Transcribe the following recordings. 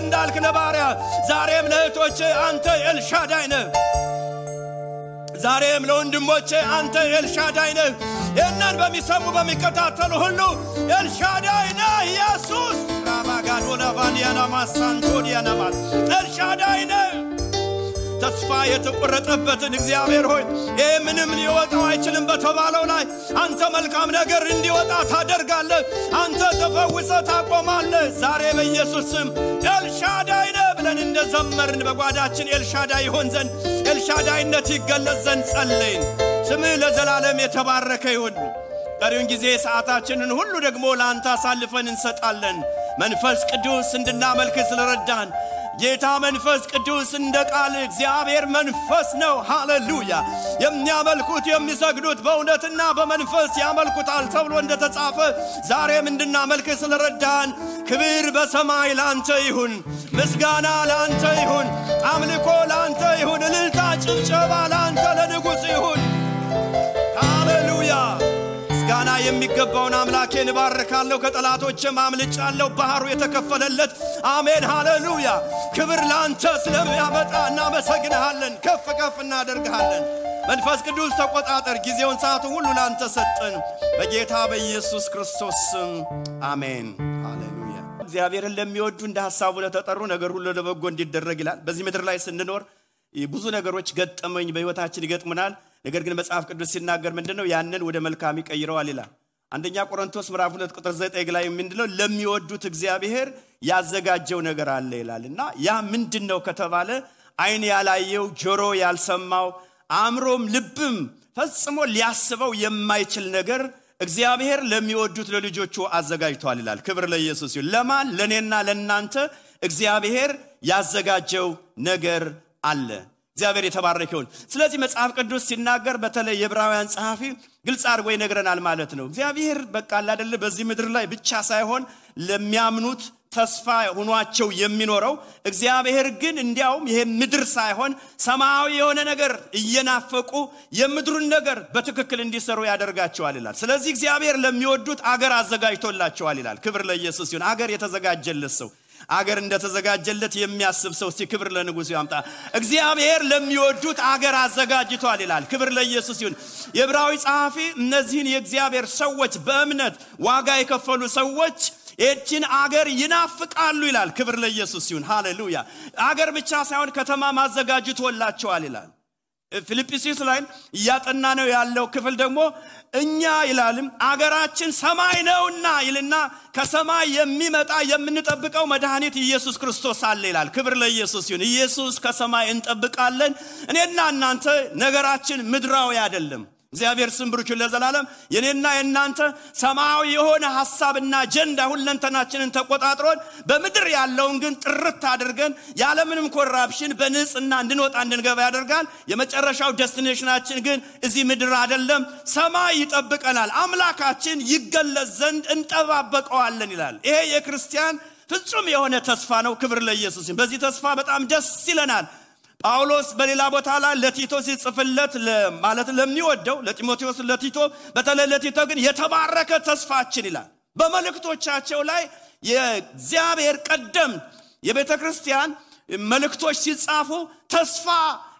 እንዳልክ ለባሪያ ዛሬም ለእህቶቼ አንተ ኤልሻዳይ ነህ ዛሬም ለወንድሞቼ አንተ ኤልሻዳይ ነህ እነን በሚሰሙ በሚከታተሉ ሁሉ ኤልሻዳይ ነህ ኢየሱስ ራባጋዶና ቫንዲያና ማሳንቶዲያና ማስ ኤልሻዳይ ነህ ተስፋ የተቆረጠበትን እግዚአብሔር ሆይ ምንም ሊወጣው አይችልም በተባለው ላይ አንተ መልካም ነገር እንዲወጣ ታደርጋለህ አንተ ተፈውሰህ ታቆማለህ ዛሬ በኢየሱስ ስም ኤልሻዳይ ነህ ብለን እንደዘመርን በጓዳችን ኤልሻዳይ ይሆን ዘንድ ኤልሻዳይነት ይገለጽ ዘንድ ጸለይን ስምህ ለዘላለም የተባረከ ይሁን ቀሪውን ጊዜ ሰዓታችንን ሁሉ ደግሞ ለአንተ አሳልፈን እንሰጣለን መንፈስ ቅዱስ እንድናመልክ ስለረዳን ጌታ መንፈስ ቅዱስ እንደ ቃል እግዚአብሔር መንፈስ ነው ሃሌሉያ የሚያመልኩት የሚሰግዱት በእውነትና በመንፈስ ያመልኩታል ተብሎ እንደተጻፈ ዛሬም እንድናመልክ ስለረዳን ክብር በሰማይ ላንተ ይሁን ምስጋና ላንተ ይሁን አምልኮ ላንተ ይሁን እልልታ ጭብጨባ ላንተ ለንጉሥ ይሁን ሃሌሉያ ምስጋና የሚገባውን አምላኬን ባርካለሁ ከጠላቶችም አምልጫለሁ ባህሩ የተከፈለለት አሜን ሃሌሉያ ክብር ላንተ ስለሚያመጣ እናመሰግንሃለን ከፍ ከፍ እናደርግሃለን መንፈስ ቅዱስ ተቆጣጠር ጊዜውን ሰዓቱን ሁሉ ላንተ ሰጠን በጌታ በኢየሱስ ክርስቶስ ስም አሜን ሃሌሉያ እግዚአብሔርን ለሚወዱ እንደ ሐሳቡ ለተጠሩ ነገር ሁሉ ለበጎ እንዲደረግ ይላል በዚህ ምድር ላይ ስንኖር ብዙ ነገሮች ገጠመኝ በህይወታችን ይገጥሙናል ነገር ግን መጽሐፍ ቅዱስ ሲናገር ምንድነው ያንን ወደ መልካም ይቀይረዋል ይላል አንደኛ ቆሮንቶስ ምዕራፍ 2 ቁጥር 9 ላይ ምንድነው ለሚወዱት እግዚአብሔር ያዘጋጀው ነገር አለ ይላልና ያ ምንድነው ከተባለ አይን ያላየው ጆሮ ያልሰማው አእምሮም ልብም ፈጽሞ ሊያስበው የማይችል ነገር እግዚአብሔር ለሚወዱት ለልጆቹ አዘጋጅቷል ይላል ክብር ለኢየሱስ ይሁን ለማን ለኔና ለናንተ እግዚአብሔር ያዘጋጀው ነገር አለ እግዚአብሔር የተባረከ ይሁን ስለዚህ መጽሐፍ ቅዱስ ሲናገር በተለይ የዕብራውያን ጸሐፊ ግልጽ አድርጎ ይነግረናል ማለት ነው እግዚአብሔር በቃ አይደለ በዚህ ምድር ላይ ብቻ ሳይሆን ለሚያምኑት ተስፋ ሆኗቸው የሚኖረው እግዚአብሔር ግን እንዲያውም ይሄ ምድር ሳይሆን ሰማያዊ የሆነ ነገር እየናፈቁ የምድሩን ነገር በትክክል እንዲሰሩ ያደርጋቸዋል ይላል ስለዚህ እግዚአብሔር ለሚወዱት አገር አዘጋጅቶላቸዋል ይላል ክብር ለኢየሱስ ይሁን አገር የተዘጋጀለት ሰው አገር እንደተዘጋጀለት የሚያስብ ሰው ሲክብር ለንጉሥ ያምጣ እግዚአብሔር ለሚወዱት አገር አዘጋጅቷል ይላል ክብር ለኢየሱስ ይሁን የዕብራዊ ጸሐፊ እነዚህን የእግዚአብሔር ሰዎች በእምነት ዋጋ የከፈሉ ሰዎች እቺን አገር ይናፍቃሉ ይላል ክብር ለኢየሱስ ይሁን ሃሌሉያ አገር ብቻ ሳይሆን ከተማ ማዘጋጅቶላቸዋል ይላል ፊልጵስዩስ ላይ ያጠና ነው ያለው ክፍል ደግሞ እኛ ይላልም አገራችን ሰማይ ነውና ይልና ከሰማይ የሚመጣ የምንጠብቀው መድኃኒት ኢየሱስ ክርስቶስ አለ ይላል ክብር ለኢየሱስ ይሁን ኢየሱስ ከሰማይ እንጠብቃለን እኔና እናንተ ነገራችን ምድራዊ አይደለም እግዚአብሔር ስም ብሩክ ለዘላለም የኔና የናንተ ሰማያዊ የሆነ ሐሳብና አጀንዳ ሁለንተናችንን ተቆጣጥሮን በምድር ያለውን ግን ጥርት አድርገን ያለምንም ኮራፕሽን በንጽህና እንድንወጣ እንድንገባ ያደርጋል የመጨረሻው ዴስቲኔሽናችን ግን እዚህ ምድር አይደለም ሰማይ ይጠብቀናል አምላካችን ይገለጽ ዘንድ እንጠባበቀዋለን ይላል ይሄ የክርስቲያን ፍጹም የሆነ ተስፋ ነው ክብር ለኢየሱስ በዚህ ተስፋ በጣም ደስ ይለናል ጳውሎስ በሌላ ቦታ ላይ ለቲቶ ሲጽፍለት ማለት ለሚወደው ለጢሞቴዎስ ለቲቶ በተለይ ለቲቶ ግን የተባረከ ተስፋችን ይላል በመልእክቶቻቸው ላይ የእግዚአብሔር ቀደም የቤተክርስቲያን መልእክቶች ሲጻፉ ተስፋ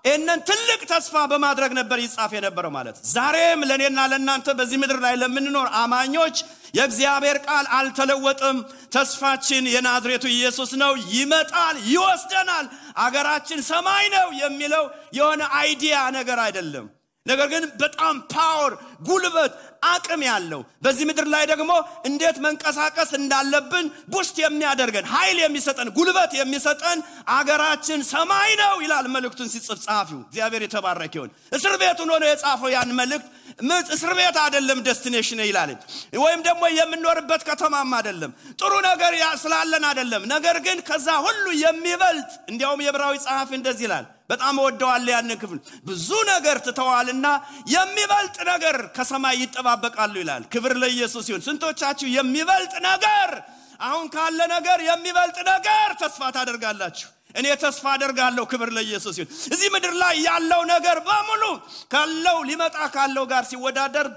እነን ትልቅ ተስፋ በማድረግ ነበር ይጻፍ የነበረው ማለት ዛሬም ለኔና ለናንተ በዚህ ምድር ላይ ለምንኖር አማኞች የእግዚአብሔር ቃል አልተለወጠም ተስፋችን የናዝሬቱ ኢየሱስ ነው ይመጣል ይወስደናል አገራችን ሰማይ ነው የሚለው የሆነ አይዲያ ነገር አይደለም ነገር ግን በጣም ፓወር ጉልበት አቅም ያለው በዚህ ምድር ላይ ደግሞ እንዴት መንቀሳቀስ እንዳለብን ቡስት የሚያደርገን ኃይል የሚሰጠን ጉልበት የሚሰጠን አገራችን ሰማይ ነው ይላል መልእክቱን ሲጽፍ ጻፊው እግዚአብሔር የተባረከ ይሁን እስር ቤት ሆኖ ነው የጻፈው ያን መልእክት እስር ቤት አይደለም ዴስቲኔሽን ይላል ወይም ደግሞ የምንኖርበት ከተማም አይደለም ጥሩ ነገር ስላለን አይደለም ነገር ግን ከዛ ሁሉ የሚበልጥ እንዲያውም የዕብራዊ ጸሐፊ እንደዚህ ይላል በጣም ወደዋል ያን ክፍል ብዙ ነገር ተተዋልና የሚበልጥ ነገር ከሰማይ ይጠባበቃሉ ይላል ክብር ለኢየሱስ ይሁን ስንቶቻችሁ የሚበልጥ ነገር አሁን ካለ ነገር የሚበልጥ ነገር ተስፋ ታደርጋላችሁ እኔ ተስፋ አደርጋለሁ ክብር ለኢየሱስ ይሁን እዚህ ምድር ላይ ያለው ነገር በሙሉ ካለው ሊመጣ ካለው ጋር ሲወዳደር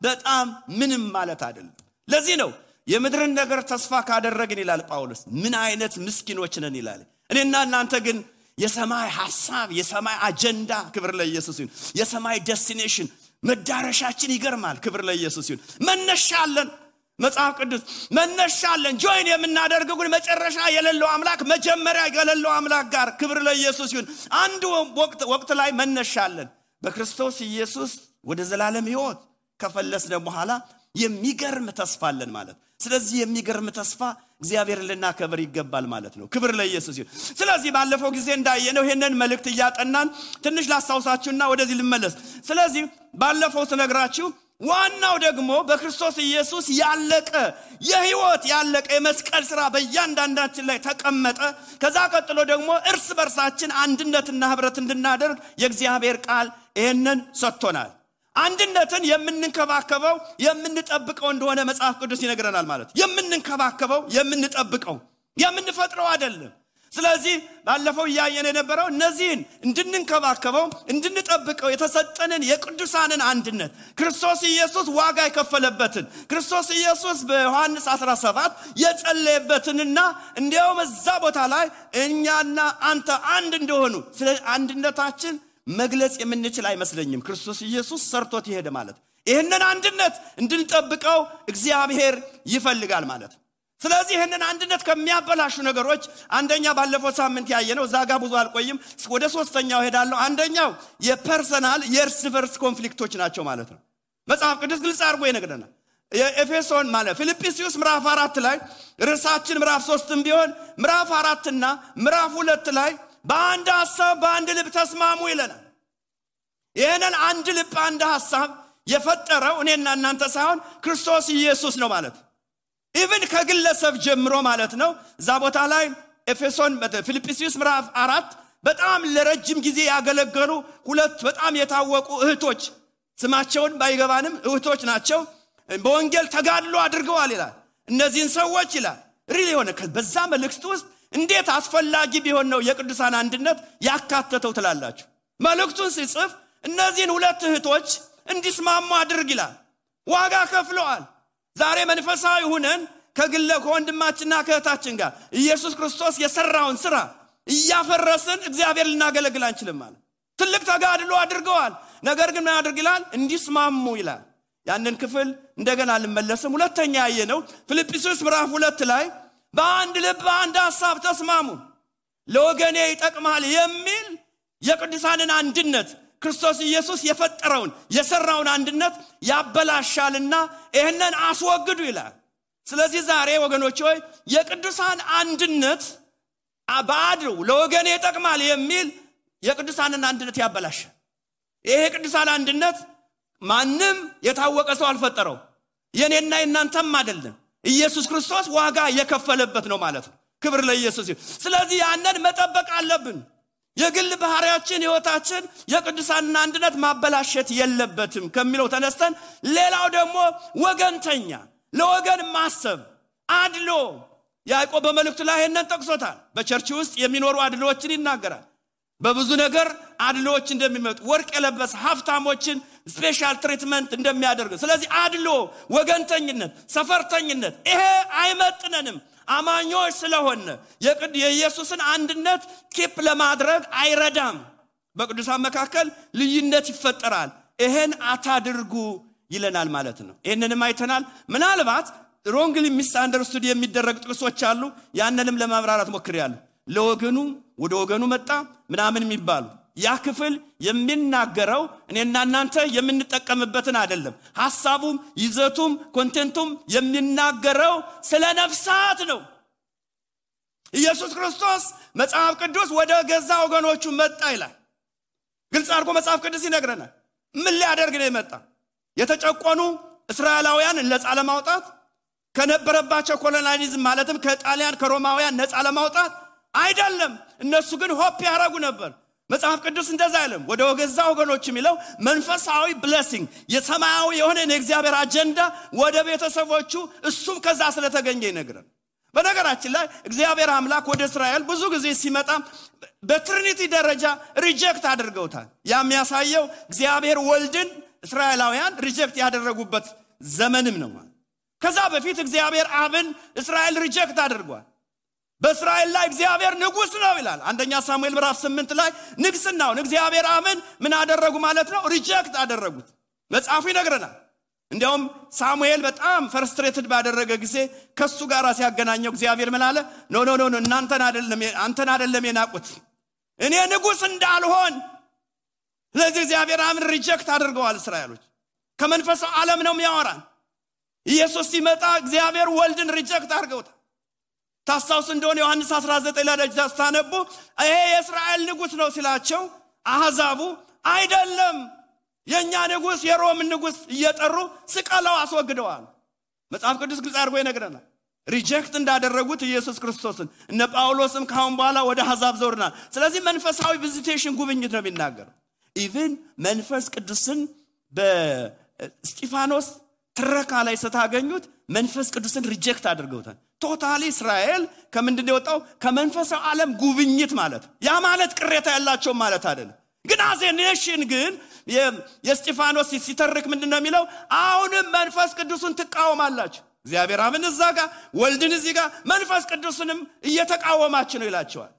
በጣም ምንም ማለት አይደለም ለዚህ ነው የምድርን ነገር ተስፋ ካደረግን ይላል ጳውሎስ ምን አይነት ምስኪኖች ነን ይላል እኔና እናንተ ግን የሰማይ ሐሳብ የሰማይ አጀንዳ ክብር ለኢየሱስ ይሁን የሰማይ ዴስቲኔሽን መዳረሻችን ይገርማል ክብር ለኢየሱስ ይሁን መነሻለን መጽሐፍ ቅዱስ መነሻለን ጆይን የምናደርገው ግን መጨረሻ የሌለው አምላክ መጀመሪያ የሌለው አምላክ ጋር ክብር ለኢየሱስ ይሁን አንድ ወቅት ላይ መነሻለን በክርስቶስ ኢየሱስ ወደ ዘላለም ሕይወት ከፈለስን በኋላ የሚገርም ተስፋ አለን ማለት ስለዚህ የሚገርም ተስፋ እግዚአብሔር ልናከብር ይገባል ማለት ነው ክብር ለኢየሱስ ይሁን ስለዚህ ባለፈው ጊዜ እንዳየነው ይሄንን መልእክት ያጠናን ትንሽ ላስታውሳችሁና ወደዚህ ልመለስ ስለዚህ ባለፈው ተነግራችሁ ዋናው ደግሞ በክርስቶስ ኢየሱስ ያለቀ የሕይወት ያለቀ የመስቀል ሥራ በእያንዳንዳችን ላይ ተቀመጠ ከዛ ቀጥሎ ደግሞ እርስ በርሳችን አንድነትና ህብረት እንድናደርግ የእግዚአብሔር ቃል ይሄንን ሰጥቶናል አንድነትን የምንንከባከበው የምንጠብቀው እንደሆነ መጽሐፍ ቅዱስ ይነግረናል ማለት የምንንከባከበው የምንጠብቀው የምንፈጥረው አይደለም ስለዚህ ባለፈው ያየነ የነበረው እነዚህን እንድንንከባከበው እንድንጠብቀው የተሰጠንን የቅዱሳንን አንድነት ክርስቶስ ኢየሱስ ዋጋ የከፈለበትን ክርስቶስ ኢየሱስ በዮሐንስ 17 የጸለየበትንና እንዲያውም እዛ ቦታ ላይ እኛና አንተ አንድ እንደሆኑ ስለ አንድነታችን መግለጽ የምንችል አይመስለኝም ክርስቶስ ኢየሱስ ሰርቶት ይሄደ ማለት ይሄንን አንድነት እንድንጠብቀው እግዚአብሔር ይፈልጋል ማለት ስለዚህ ይሄንን አንድነት ከሚያበላሹ ነገሮች አንደኛ ባለፈው ሳምንት ያየነው ዛጋ ብዙ አልቆይም ወደ ሶስተኛው ሄዳለሁ አንደኛው የፐርሰናል የእርስ በርስ ኮንፍሊክቶች ናቸው ማለት ነው መጽሐፍ ቅዱስ ግልጽ አድርጎ ይነግረናል የኤፌሶን ማለት ፊልጵስዩስ ምዕራፍ 4 ላይ ርዕሳችን ምዕራፍ 3ም ቢሆን ምዕራፍ 4 እና ምዕራፍ 2 ላይ በአንድ ሐሳብ በአንድ ልብ ተስማሙ ይለናል ይሄንን አንድ ልብ አንድ ሐሳብ የፈጠረው እኔና እናንተ ሳይሆን ክርስቶስ ኢየሱስ ነው ማለት ኢቭን ከግለሰብ ጀምሮ ማለት ነው እዛ ቦታ ላይ ኤፌሶን ፊልጵስዩስ ምዕራፍ 4 በጣም ለረጅም ጊዜ ያገለገሉ ሁለት በጣም የታወቁ እህቶች ስማቸውን ባይገባንም እህቶች ናቸው በወንጌል ተጋድሎ አድርገዋል ይላል እነዚህን ሰዎች ይላል ሪሊ ሆነ በዛ መልእክት ውስጥ እንዴት አስፈላጊ ቢሆን ነው የቅዱሳን አንድነት ያካተተው ትላላችሁ መልእክቱን ሲጽፍ እነዚህን ሁለት እህቶች እንዲስማሙ አድርግ ይላል ዋጋ ከፍለዋል ዛሬ መንፈሳዊ ሆነን ከወንድማችንና ከእህታችን ጋር ኢየሱስ ክርስቶስ የሰራውን ሥራ እያፈረስን እግዚአብሔር ልናገለግል አንችልም ማለት ትልቅ ተጋድሎ አድርገዋል ነገር ግን ምን አድርግ ይላል እንዲስማሙ ይላል ያንን ክፍል እንደገና ልመለስም ሁለተኛ ያየነው ፊልጵስዩስ ምዕራፍ 2 ላይ በአንድ ልብ አንድ ሐሳብ ተስማሙ ለወገኔ ይጠቅማል የሚል የቅዱሳንን አንድነት ክርስቶስ ኢየሱስ የፈጠረውን የሰራውን አንድነት ያበላሻልና ይሄንን አስወግዱ ይላል ስለዚህ ዛሬ ወገኖች ሆይ የቅዱሳን አንድነት አባዱ ለወገኔ ይጠቅማል የሚል የቅዱሳንን አንድነት ያበላሻል ይሄ ቅዱሳን አንድነት ማንም የታወቀ ሰው አልፈጠረው የኔና የናንተም አይደለም ኢየሱስ ክርስቶስ ዋጋ የከፈለበት ነው ማለት ነው ክብር ለኢየሱስ ይሁን ስለዚህ ያንን መጠበቅ አለብን የግል ባህሪያችን ህይወታችን የቅዱሳን አንድነት ማበላሸት የለበትም ከሚለው ተነስተን ሌላው ደግሞ ወገንተኛ ለወገን ማሰብ አድሎ ያዕቆብ በመልእክቱ ላይ ይሄንን ጠቅሶታል በቸርች ውስጥ የሚኖሩ አድሎዎችን ይናገራል በብዙ ነገር አድሎዎች እንደሚመጡ ወርቅ የለበሰ ሀብታሞችን ስፔሻል ትሪትመንት እንደሚያደርግ ስለዚህ አድሎ ወገንተኝነት ሰፈርተኝነት ይሄ አይመጥነንም አማኞች ስለሆነ የኢየሱስን አንድነት ኪፕ ለማድረግ አይረዳም በቅዱሳን መካከል ልዩነት ይፈጠራል ይሄን አታድርጉ ይለናል ማለት ነው ይሄንንም አይተናል ምናልባት ሮንግሊ ሚስአንደርስቱድ የሚደረግ ጥቅሶች አሉ ያንንም ለማብራራት ሞክሬያለሁ ለወገኑ ወደ ወገኑ መጣ ምናምን የሚባሉ ያ ክፍል የሚናገረው እኔና እናንተ የምንጠቀምበትን አይደለም ሐሳቡም ይዘቱም ኮንቴንቱም የሚናገረው ስለ ነፍሳት ነው ኢየሱስ ክርስቶስ መጽሐፍ ቅዱስ ወደ ገዛ ወገኖቹ መጣ ይላል ግልጽ አድርጎ መጽሐፍ ቅዱስ ይነግረናል ምን ሊያደርግ ነው የመጣ የተጨቆኑ እስራኤላውያን ነፃ ለማውጣት ከነበረባቸው ኮሎናሊዝም ማለትም ከጣሊያን ከሮማውያን ነፃ ለማውጣት አይደለም እነሱ ግን ሆፕ ያረጉ ነበር መጽሐፍ ቅዱስ እንደዛ አይልም ወደ ገዛ ወገኖች የሚለው መንፈሳዊ ብሌሲንግ የሰማያዊ የሆነ የእግዚአብሔር አጀንዳ ወደ ቤተሰቦቹ እሱም ከዛ ስለተገኘ ይነግረን በነገራችን ላይ እግዚአብሔር አምላክ ወደ እስራኤል ብዙ ጊዜ ሲመጣ በትሪኒቲ ደረጃ ሪጀክት አድርገውታል የሚያሳየው እግዚአብሔር ወልድን እስራኤላውያን ሪጀክት ያደረጉበት ዘመንም ነው ከዛ በፊት እግዚአብሔር አብን እስራኤል ሪጀክት አድርጓል። በእስራኤል ላይ እግዚአብሔር ንጉስ ነው ይላል። አንደኛ ሳሙኤል ምዕራፍ 8 ላይ ንግስናውን እግዚአብሔር አብን ምን አደረጉ ማለት ነው? ሪጀክት አደረጉት። መጽሐፉ ይነግረናል። እንዲያውም ሳሙኤል በጣም ፍርስትሬትድ ባደረገ ጊዜ ከሱ ጋር ሲያገናኘው እግዚአብሔር ምን አለ? ኖ አንተን አይደለም የናቁት እኔ ንጉስ እንዳልሆን። ስለዚህ እግዚአብሔር አብን ሪጀክት አድርገዋል እስራኤሎች። ከመንፈሳዊ ዓለም ነው የሚያወራን። ኢየሱስ ሲመጣ እግዚአብሔር ወልድን ሪጀክት አድርገውታል። ታስታውሱ እንደሆነ ዮሐንስ 19 ላይ ታነቡ ይሄ የእስራኤል ንጉስ ነው ሲላቸው አሕዛቡ አይደለም የኛ ንጉስ የሮም ንጉስ እየጠሩ ስቀለው አስወግደዋል። መጽሐፍ ቅዱስ ግልጽ አድርጎ ይነግረናል። ሪጀክት እንዳደረጉት ኢየሱስ ክርስቶስን እነ ጳውሎስም ካሁን በኋላ ወደ አሕዛብ ዘውርናል። ስለዚህ መንፈሳዊ ቪዚቴሽን ጉብኝት ነው የሚናገረው። ኢቭን መንፈስ ቅዱስን በስጢፋኖስ ትረካ ላይ ስታገኙት መንፈስ ቅዱስን ሪጀክት አድርገውታል። ቶታሊ እስራኤል ከምንድነው የወጣው? ከመንፈሳዊ ዓለም ጉብኝት ማለት። ያ ማለት ቅሬታ ያላቸው ማለት አይደለም። ግን አዘ ኔሽን ግን የስጢፋኖስ ሲተርክ ምንድነው የሚለው? አሁንም መንፈስ ቅዱስን ትቃወማላችሁ። እግዚአብሔር አብን እዛ ጋር ወልድን እዚህ ጋር መንፈስ ቅዱስንም እየተቃወማችሁ ነው ይላቸዋል።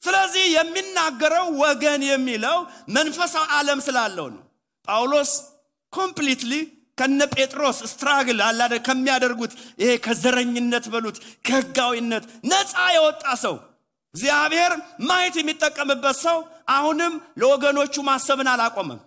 ስለዚህ የሚናገረው ወገን የሚለው መንፈሳዊ ዓለም ስላለው ነው። ጳውሎስ ኮምፕሊትሊ ከነ ጴጥሮስ ስትራግል አላደ ከሚያደርጉት ይሄ ከዘረኝነት በሉት ከህጋዊነት ነፃ የወጣ ሰው እግዚአብሔር ማየት የሚጠቀምበት ሰው አሁንም ለወገኖቹ ማሰብን አላቆመም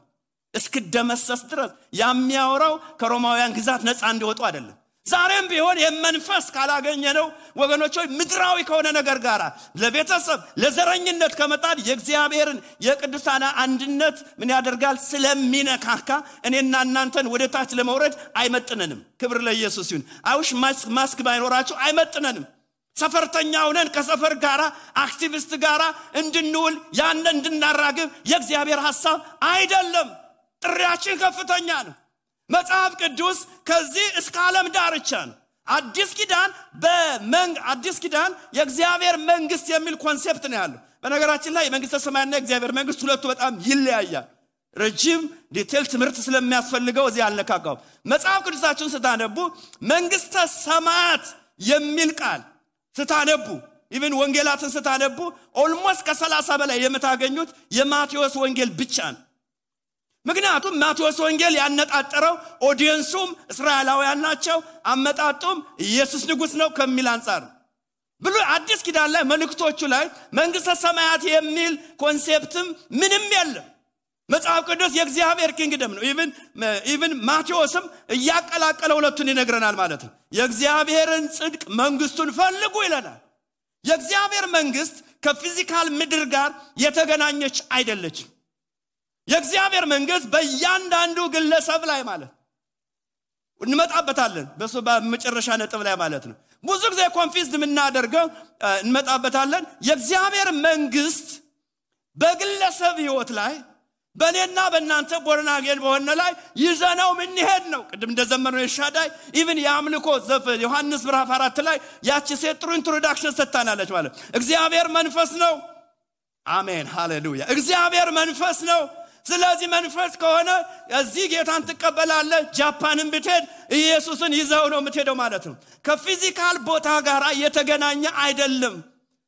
እስከደመሰስ ድረስ። የሚያወራው ከሮማውያን ግዛት ነፃ እንዲወጡ አይደለም። ዛሬም ቢሆን የመንፈስ ካላገኘነው ወገኖች ምድራዊ ከሆነ ነገር ጋር ለቤተሰብ ለዘረኝነት ከመጣድ የእግዚአብሔርን የቅዱሳን አንድነት ምን ያደርጋል? ስለሚነካካ እኔና እናንተን ወደ ታች ለመውረድ አይመጥነንም። ክብር ለኢየሱስ ይሁን። አይውሽ ማስክ ባይኖራቸው አይመጥነንም። ሰፈርተኛ ሆነን ከሰፈር ጋራ አክቲቪስት ጋራ እንድንውል ያን እንድናራግብ የእግዚአብሔር ሐሳብ አይደለም። ጥሪያችን ከፍተኛ ነው። መጽሐፍ ቅዱስ ከዚህ እስከ ዓለም ዳርቻ ነው። አዲስ ኪዳን የእግዚአብሔር መንግስት የሚል ኮንሴፕት ነው ያለው። በነገራችን ላይ የመንግስተ ሰማያትና የእግዚአብሔር መንግስት ሁለቱ በጣም ይለያያል። ረጅም ዲቴል ትምህርት ስለሚያስፈልገው እዚህ አልነካካው። መጽሐፍ ቅዱሳችሁን ስታነቡ መንግስተ ሰማያት የሚል ቃል ስታነቡ ኢቭን ወንጌላትን ስታነቡ ኦልሞስት ከ30 በላይ የምታገኙት የማቴዎስ ወንጌል ብቻ ነው። ምክንያቱም ማቴዎስ ወንጌል ያነጣጠረው ኦዲየንሱም እስራኤላውያን ናቸው፣ አመጣጡም ኢየሱስ ንጉስ ነው ከሚል አንፃር ብሎ አዲስ ኪዳን ላይ መልእክቶቹ ላይ መንግስተ ሰማያት የሚል ኮንሴፕትም ምንም የለም። መጽሐፍ ቅዱስ የእግዚአብሔር ኪንግደም ነው። ኢቭን ማቴዎስም እያቀላቀለ ሁለቱን ይነግረናል ማለት ነው። የእግዚአብሔርን ጽድቅ መንግስቱን ፈልጉ ይለናል። የእግዚአብሔር መንግስት ከፊዚካል ምድር ጋር የተገናኘች አይደለችም። የእግዚአብሔር መንግስት በእያንዳንዱ ግለሰብ ላይ ማለት እንመጣበታለን። በሱ በመጨረሻ ነጥብ ላይ ማለት ነው። ብዙ ጊዜ ኮንፊውዝድ የምናደርገው እንመጣበታለን። የእግዚአብሔር መንግስት በግለሰብ ህይወት ላይ በእኔና በእናንተ ቦርናጌን በሆነ ላይ ይዘነው ምን ይሄድ ነው። ቅድም እንደዘመርነው የሻዳይ ኢቭን የአምልኮ ዘፈን ዮሐንስ ምዕራፍ 4 ላይ ያቺ ሴት ጥሩ ኢንትሮዳክሽን ሰጥታናለች ማለት እግዚአብሔር መንፈስ ነው። አሜን ሃሌሉያ። እግዚአብሔር መንፈስ ነው። ስለዚህ መንፈስ ከሆነ እዚህ ጌታን ተቀበላለ። ጃፓንን ብትሄድ ኢየሱስን ይዘው ነው የምትሄደው ማለት ነው። ከፊዚካል ቦታ ጋር የተገናኘ አይደለም።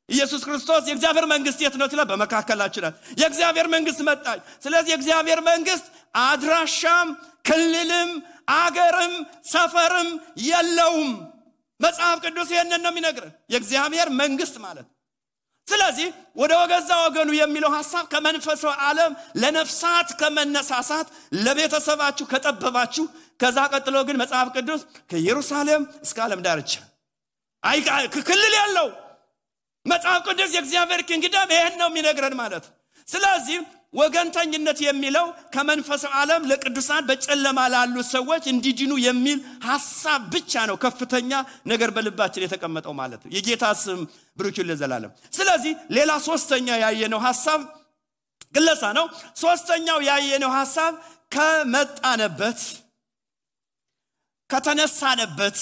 ኢየሱስ ክርስቶስ የእግዚአብሔር መንግስት የት ነው ትላ በመካከላችን የእግዚአብሔር መንግስት መጣች። ስለዚህ የእግዚአብሔር መንግስት አድራሻም ክልልም አገርም ሰፈርም የለውም። መጽሐፍ ቅዱስ ይሄንን ነው የሚነግረን የእግዚአብሔር መንግስት ማለት። ስለዚህ ወደ ወገዛ ወገኑ የሚለው ሐሳብ ከመንፈሳዊ ዓለም ለነፍሳት ከመነሳሳት ለቤተሰባችሁ ከጠበባችሁ ከዛ ቀጥሎ ግን መጽሐፍ ቅዱስ ከኢየሩሳሌም እስከ ዓለም ዳርቻ ክልል ያለው መጽሐፍ ቅዱስ የእግዚአብሔር ኪንግደም ይሄን ነው የሚነግረን ማለት። ስለዚህ ወገንተኝነት የሚለው ከመንፈሳዊ ዓለም ለቅዱሳን በጨለማ ላሉ ሰዎች እንዲድኑ የሚል ሐሳብ ብቻ ነው ከፍተኛ ነገር በልባችን የተቀመጠው ማለት ነው። የጌታ ስም ብሩክ ይሁን ለዘላለም። ስለዚህ ሌላ ሶስተኛ ያየነው ሐሳብ ግለሳ ነው። ሶስተኛው ያየነው ሐሳብ ከመጣነበት ከተነሳነበት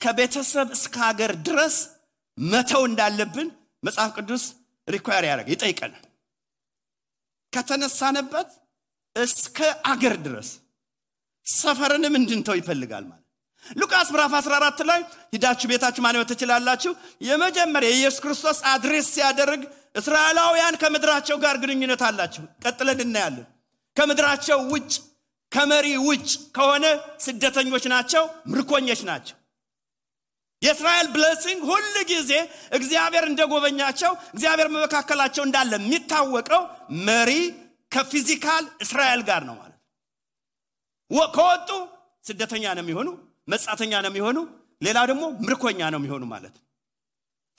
ከቤተሰብ እስከ ሀገር ድረስ መተው እንዳለብን መጽሐፍ ቅዱስ ሪኳየር ያደርጋል፣ ይጠይቀናል። ከተነሳነበት እስከ አገር ድረስ ሰፈርንም እንድንተው ይፈልጋል ማለት። ሉቃስ ምዕራፍ 14 ላይ ሂዳችሁ ቤታችሁ ማንበብ ትችላላችሁ። የመጀመሪያ ኢየሱስ ክርስቶስ አድሬስ ሲያደርግ እስራኤላውያን ከምድራቸው ጋር ግንኙነት አላቸው። ቀጥለን እናያለን። ከምድራቸው ውጭ ከመሪ ውጭ ከሆነ ስደተኞች ናቸው፣ ምርኮኞች ናቸው። የእስራኤል ብሌሲንግ ሁሉ ጊዜ እግዚአብሔር እንደጎበኛቸው እግዚአብሔር መካከላቸው እንዳለ የሚታወቀው መሪ ከፊዚካል እስራኤል ጋር ነው ማለት ነው። ከወጡ ስደተኛ ነው የሚሆኑ፣ መጻተኛ ነው የሚሆኑ፣ ሌላ ደግሞ ምርኮኛ ነው የሚሆኑ ማለት ነው።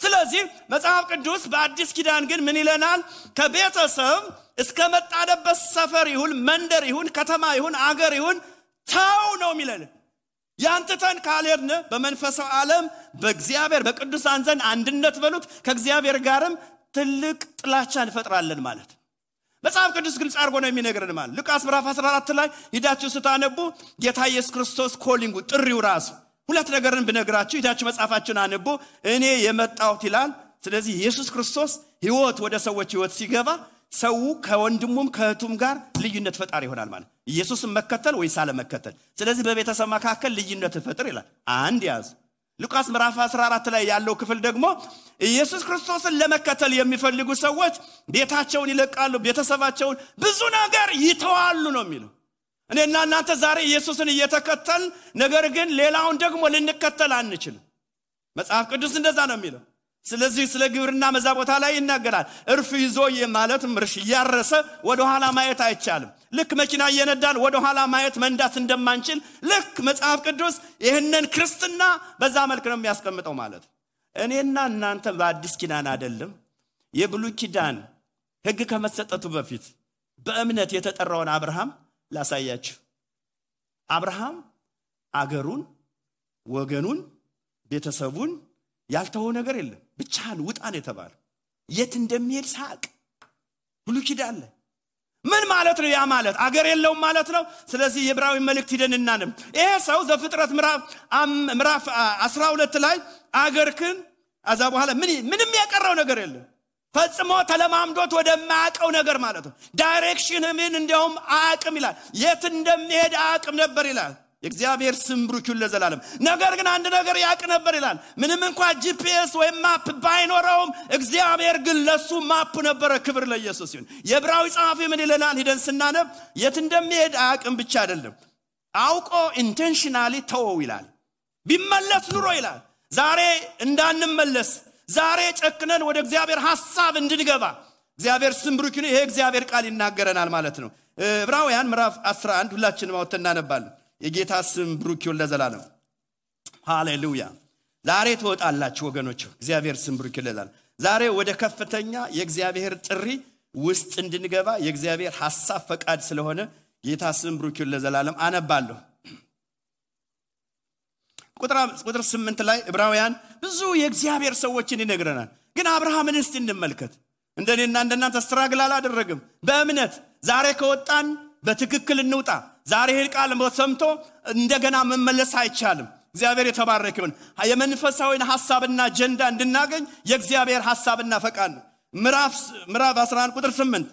ስለዚህ መጽሐፍ ቅዱስ በአዲስ ኪዳን ግን ምን ይለናል? ከቤተሰብ እስከ መጣደበት ሰፈር ይሁን መንደር ይሁን ከተማ ይሁን አገር ይሁን ተው ነው የሚለን። ያንተን ካልሄድን በመንፈሳዊ ዓለም በእግዚአብሔር በቅዱሳን ዘንድ አንድነት በሉት ከእግዚአብሔር ጋርም ትልቅ ጥላቻ እንፈጥራለን ማለት ነው። መጽሐፍ ቅዱስ ግልጽ አድርጎ ነው የሚነግረን ማለት ሉቃስ ምዕራፍ 14 ላይ ሂዳችሁ ስታነቡ ጌታ ኢየሱስ ክርስቶስ ኮሊንጉ ጥሪው ራሱ ሁለት ነገርን ብነግራችሁ ሂዳችሁ መጽሐፋችሁን አንቡ። እኔ የመጣሁት ይላል። ስለዚህ ኢየሱስ ክርስቶስ ሕይወት ወደ ሰዎች ሕይወት ሲገባ ሰው ከወንድሙም ከእህቱም ጋር ልዩነት ፈጣሪ ይሆናል ማለት ኢየሱስን መከተል ወይስ አለመከተል። ስለዚህ በቤተሰብ መካከል ልዩነት ፈጥር ይላል። አንድ ያዝ። ሉቃስ ምዕራፍ 14 ላይ ያለው ክፍል ደግሞ ኢየሱስ ክርስቶስን ለመከተል የሚፈልጉ ሰዎች ቤታቸውን ይለቃሉ፣ ቤተሰባቸውን ብዙ ነገር ይተዋሉ ነው የሚለው። እኔና እናንተ ዛሬ ኢየሱስን እየተከተል ነገር ግን ሌላውን ደግሞ ልንከተል አንችልም። መጽሐፍ ቅዱስ እንደዛ ነው የሚለው። ስለዚህ ስለ ግብርና መዛ ቦታ ላይ ይናገራል። እርፍ ይዞ ማለት ምርሽ ያረሰ ወደ ኋላ ማየት አይቻልም። ልክ መኪና እየነዳን ወደ ኋላ ማየት መንዳት እንደማንችል ልክ መጽሐፍ ቅዱስ ይህንን ክርስትና በዛ መልክ ነው የሚያስቀምጠው ማለት። እኔና እናንተ በአዲስ ኪዳን አይደለም የብሉይ ኪዳን ሕግ ከመሰጠቱ በፊት በእምነት የተጠራውን አብርሃም ላሳያችሁ። አብርሃም አገሩን፣ ወገኑን፣ ቤተሰቡን ያልተወው ነገር የለም። ብቻህን ውጣ ነው የተባለው። የት እንደሚሄድ ሳቅ ብሉይ ኪዳን ላይ ምን ማለት ነው? ያ ማለት አገር የለውም ማለት ነው። ስለዚህ የዕብራዊ መልእክት ሄደን እናነብ። ይሄ ሰው ዘፍጥረት ምዕራፍ 12 ላይ አገርክን አዛ በኋላ ምንም ያቀረው ነገር የለም። ፈጽሞ ተለማምዶት ወደማያቀው ነገር ማለት ነው። ዳይሬክሽን ምን እንደውም አያቅም ይላል። የት እንደሚሄድ አያቅም ነበር ይላል። የእግዚአብሔር ስም ብሩክ ይሁን ለዘላለም። ነገር ግን አንድ ነገር ያቅ ነበር ይላል። ምንም እንኳን ጂፒኤስ ወይ ማፕ ባይኖረውም እግዚአብሔር ግን ለሱ ማፕ ነበረ። ክብር ለኢየሱስ ይሁን። የዕብራዊ ጸሐፊ ምን ይለናል? ሄደን ስናነብ የት እንደሚሄድ አያቅም ብቻ አይደለም አውቆ ኢንቴንሽናሊ ተወው ይላል። ቢመለስ ኑሮ ይላል ዛሬ እንዳንመለስ ዛሬ ጨክነን ወደ እግዚአብሔር ሐሳብ እንድንገባ እግዚአብሔር ስም ብሩክ ይሁን። ይሄ እግዚአብሔር ቃል ይናገረናል ማለት ነው። ዕብራውያን ምዕራፍ 11 ሁላችንም አውጥተን እናነባለን። የጌታ ስም ብሩክ ይሁን ለዘላለም። ሃሌሉያ። ዛሬ ትወጣላችሁ ወገኖች። እግዚአብሔር ስም ብሩክ ይላል። ዛሬ ወደ ከፍተኛ የእግዚአብሔር ጥሪ ውስጥ እንድንገባ የእግዚአብሔር ሐሳብ ፈቃድ ስለሆነ ጌታ ስም ብሩክ ይሁን ለዘላለም። አነባለሁ። ቁጥር 8 ላይ ዕብራውያን ብዙ የእግዚአብሔር ሰዎችን ይነግረናል። ግን አብርሃምን እስቲ እንመልከት። እንደኔና እንደናንተ ስትራግል አላደረገም። በእምነት ዛሬ ከወጣን በትክክል እንውጣ። ዛሬ ይሄን ቃል ሰምቶ እንደገና መመለስ አይቻልም። እግዚአብሔር የተባረከ ይሁን። የመንፈሳዊን ሐሳብና አጀንዳ እንድናገኝ የእግዚአብሔር ሐሳብና ፈቃድ ነው። ምዕራፍ 11 ቁጥር 8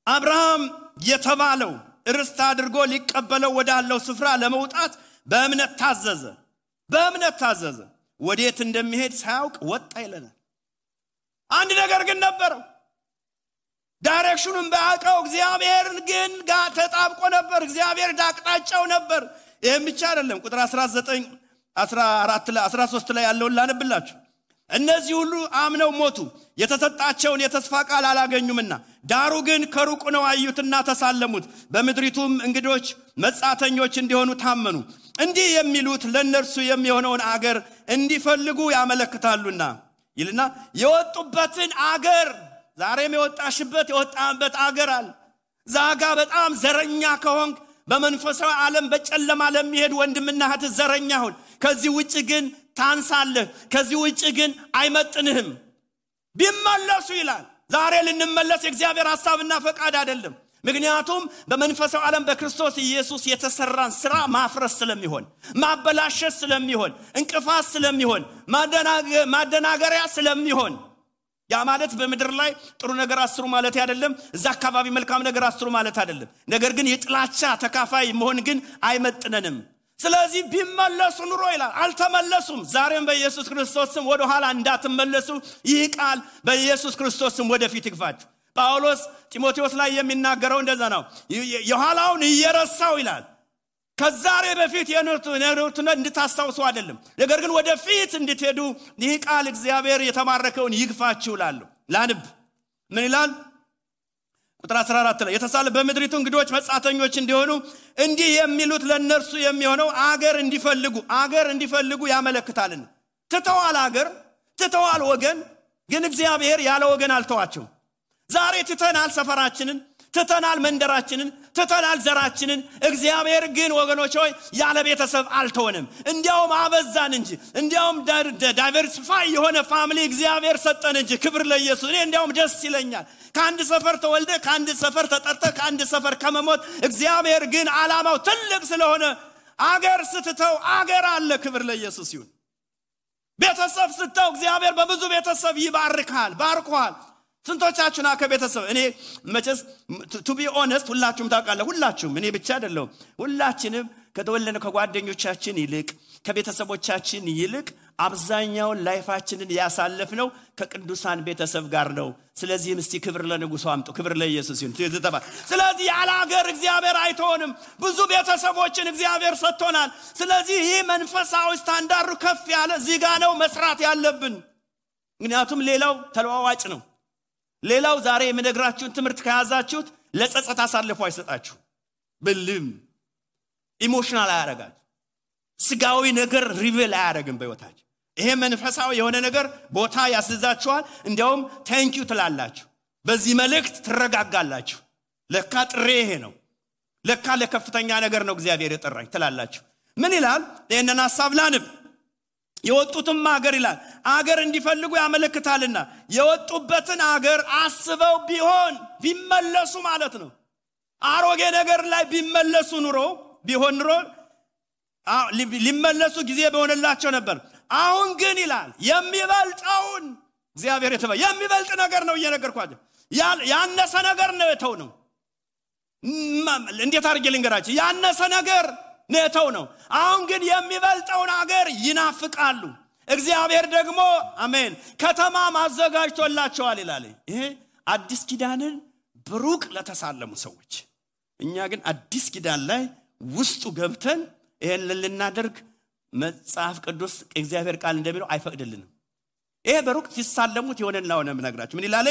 አብርሃም የተባለው ርስት አድርጎ ሊቀበለው ወዳለው ስፍራ ለመውጣት በእምነት ታዘዘ። ወዴት እንደሚሄድ ሳያውቅ ወጣ ይለናል። አንድ ነገር ግን ነበረው። ዳይሬክሽኑን ባያውቀው እግዚአብሔርን ግን ጋር ተጣብቆ ነበር። እግዚአብሔር ዳቅጣጫው ነበር። ይሄም ብቻ አይደለም። ቁጥር 19 14 ላይ 13 ላይ ያለውን ላነብላችሁ። እነዚህ ሁሉ አምነው ሞቱ፣ የተሰጣቸውን የተስፋ ቃል አላገኙምና ዳሩ ግን ከሩቅ ነው አዩትና ተሳለሙት። በምድሪቱም እንግዶች መጻተኞች እንዲሆኑ ታመኑ። እንዲህ የሚሉት ለነርሱ የሚሆነውን አገር እንዲፈልጉ ያመለክታሉና ይልና የወጡበትን አገር ዛሬም የወጣበት አገር አለ። ዛጋ በጣም ዘረኛ ከሆንክ በመንፈሳዊ ዓለም በጨለማ ለሚሄድ ወንድምና እህት ዘረኛ ሁን። ከዚህ ውጪ ግን ታንሳለህ። ከዚህ ውጪ ግን አይመጥንህም። ቢመለሱ ይላል። ዛሬ ልንመለስ የእግዚአብሔር ሐሳብና ፈቃድ አይደለም። ምክንያቱም በመንፈሳዊ ዓለም በክርስቶስ ኢየሱስ የተሰራን ስራ ማፍረስ ስለሚሆን፣ ማበላሸት ስለሚሆን፣ እንቅፋት ስለሚሆን፣ ማደናገሪያ ስለሚሆን ያ ማለት በመድር ላይ ጥሩ ነገር አስሩ ማለት አይደለም። እዛ አካባቢ መልካም ነገር አስሩ ማለት አይደለም። ነገር ግን የጥላቻ ተካፋይ መሆን ግን አይመጥነንም። ስለዚህ ቢመለሱ ኑሮ ይላል አልተመለሱም ዛሬም በኢየሱስ ክርስቶስ ስም ወደ ኋላ እንዳትመለሱ ይህ ቃል በኢየሱስ ክርስቶስ ስም ወደፊት ይግፋችሁ ጳውሎስ ጢሞቴዎስ ላይ የሚናገረው እንደዛ ነው የኋላውን እየረሳው ይላል ከዛሬ በፊት የኖሩትን እንድታስታውሱ አይደለም ነገር ግን ወደፊት እንድትሄዱ ይህ ቃል እግዚአብሔር የተማረከውን ይግፋችሁ ይላል ላንብ ምን ይላል ቁጥር 14 ላይ የተሳለ በመድሪቱ እንግዶች መጻተኞች እንዲሆኑ እንዲህ የሚሉት ለነርሱ የሚሆነው አገር እንዲፈልጉ ያመለክታልና ትተዋል ወገን ግን እግዚአብሔር ያለ ወገን አልተዋቸው ዛሬ ትተናል ሰፈራችንን ትተናል መንደራችንን ትተናል ዘራችንን እግዚአብሔር ግን ወገኖች ሆይ ያለ ቤተሰብ አልተወንም እንዲያውም አበዛን እንጂ እንዲያውም ዳይቨርሲፋይ የሆነ ፋሚሊ እግዚአብሔር ሰጠን እንጂ ክብር ለኢየሱስ እኔ እንዲያውም ደስ ይለኛል ከአንድ ሰፈር ተወልደ ከአንድ ሰፈር ተጠርተ ከአንድ ሰፈር ከመሞት እግዚአብሔር ግን ዓላማው ትልቅ ስለሆነ አገር ስትተው አገር አለ ክብር ለኢየሱስ ይሁን ቤተሰብ ስትተው እግዚአብሔር በብዙ ቤተሰብ ይባርካል ባርኳል ስንቶቻችሁና ከቤተሰብ እኔ መቼስ to be honest ሁላችሁም ታውቃላችሁ ሁላችሁም እኔ ብቻ አይደለም ሁላችንም ከተወለነ ከጓደኞቻችን ይልቅ ከቤተሰቦቻችን ይልቅ አብዛኛው ላይፋችንን ያሳለፍነው ከቅዱሳን ቤተሰብ ጋር ነው ስለዚህ እስቲ ክብር ለንጉሱ አምጡ ክብር ለኢየሱስ ይሁን ስለዚህ ያለ ሀገር እግዚአብሔር አይተውንም ብዙ ቤተሰቦችን እግዚአብሔር ሰጥቶናል ስለዚህ ይህ መንፈሳዊ ስታንዳርዱ ከፍ ያለ እዚህ ጋር ነው መስራት ያለብን ምክንያቱም ሌላው ተለዋዋጭ ነው ሌላው ዛሬ የምነግራችሁን ትምህርት ከያዛችሁት ለጸጸት አሳልፎ አይሰጣችሁ በልም ኢሞሽናል አያረጋችሁ ስጋዊ ነገር ሪቪል አያረግም በህይወታችሁ ይሄ መንፈሳዊ የሆነ ነገር ቦታ ያስይዛችኋል እንዲያውም ታንክ ዩ ትላላችሁ በዚህ መልእክት ትረጋጋላችሁ ለካ ጥሬ ይሄ ነው ለካ ለከፍተኛ ነገር ነው እግዚአብሔር የጠራኝ ትላላችሁ ምን ይላል ይሄንን ሐሳብ ላንብ የወጡትም አገር ይላል አገር እንዲፈልጉ ያመለክታልና የወጡበትን አገር አስበው ቢመለሱ ማለት ነው አሮጌ ነገር ላይ ቢመለሱ ኑሮ ሊመለሱ ጊዜ በሆነላቸው ነበር አሁን ግን ይላል የሚበልጠውን እግዚአብሔር የሚበልጥ ነገር ነው እየነገርኳችሁ ያነሰ ነገር ነው የተው ነው እንዴት አድርጌ ልንገራችሁ ያነሰ ነገር ነተው ነው አሁን ግን የሚበልጠውን አገር ይናፍቃሉ እግዚአብሔር ደግሞ አሜን ከተማ ማዘጋጅቶላቸዋል ይላል ይሄ አዲስ ኪዳንን ብሩቅ ለተሳለሙ ሰዎች እኛ ግን አዲስ ኪዳን ላይ ውስጡ ገብተን ይሄን ልናደርግ መጽሐፍ ቅዱስ እግዚአብሔር ቃል እንደሚለው አይፈቅድልንም ይሄ በሩቅ ሲሳለሙት የሆነና ሆነ ምነግራችሁ ምን ይላል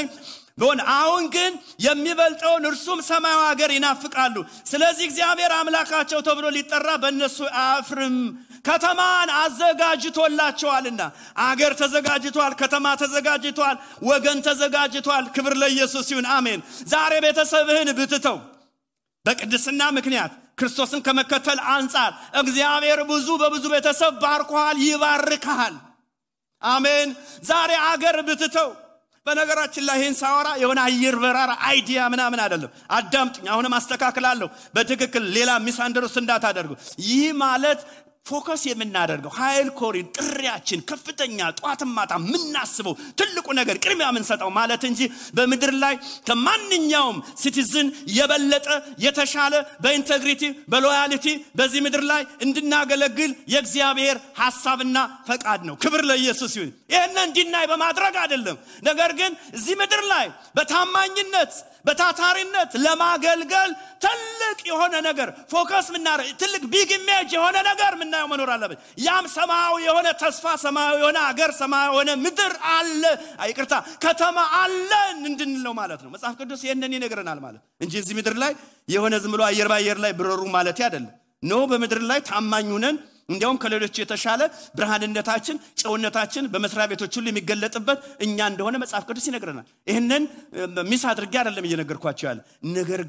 አሁን ግን የሚበልጠውን እርሱም ሰማያዊ ሀገር ይናፍቃሉ ስለዚህ እግዚአብሔር አምላካቸው ተብሎ ሊጠራ በእነሱ አፍርም ከተማን አዘጋጅቶላቸዋልና አገር ተዘጋጅቷል ከተማ ተዘጋጅቷል ወገን ተዘጋጅቷል ክብር ለኢየሱስ ይሁን አሜን ዛሬ ቤተሰብህን ብትተው በቅድስና ምክንያት ክርስቶስን ከመከተል አንፃር እግዚአብሔር በብዙ ቤተሰብ ባርኳል ይባርካል አሜን ዛሬ አገር ብትተው በነገራችን ላይ ይሄን ሳወራ የሆነ አየር በራራ አይዲያ ምናምን አይደለም አዳምጡኝ አሁንም አስተካክላለሁ በትክክል ሌላ ሚስአንደርስታንድ እንዳታደርጉ ይህ ማለት ፎከስ የምናደርገው ኃይል ኮሪን ጥሪያችን ከፍተኛ ጧትም ማታ ምናስበው ትልቁ ነገር ቅድሚያ ምንሰጠው ማለት እንጂ በመድር ላይ ከማንኛውም ሲቲዝን የበለጠ የተሻለ በኢንቴግሪቲ በሎያሊቲ በዚህ ምድር ላይ እንድናገለግል የእግዚአብሔር ሐሳብና ፈቃድ ነው ክብር ለኢየሱስ ይሁን ይሄንን እንዲናይ በማድረግ አይደለም ነገር ግን እዚህ ምድር ላይ በታማኝነት በታታሪነት ለማገልገል ትልቅ የሆነ ነገር ፎከስ ምናረ ትልቅ ቢግ ኢሜጅ የሆነ ነገር ምናየው መኖር አለበት ያም ሰማያዊ የሆነ ተስፋ ሰማያዊ የሆነ አገር ሰማያዊ የሆነ ምድር አለ አይቅርታ ከተማ አለ እንድንለው ማለት ነው መጽሐፍ ቅዱስ ይሄንን ይነግረናል ማለት እንጂ እዚህ ምድር ላይ የሆነ ዝም ብሎ አየር ባየር ላይ ብረሩ ማለት አይደለም ነው በምድር ላይ ታማኝ ሆነን እንዲያውም ከሌሎች የተሻለ ብርሃንነታችን ጨውነታችን በመስሪያ ቤቶች ሁሉ የሚገለጥበት እኛ እንደሆነ መጽሐፍ ቅዱስ ይነግረናል ይሄንን ሚስ አድርጌ አይደለም እየነገርኳችሁ ያለ ነገር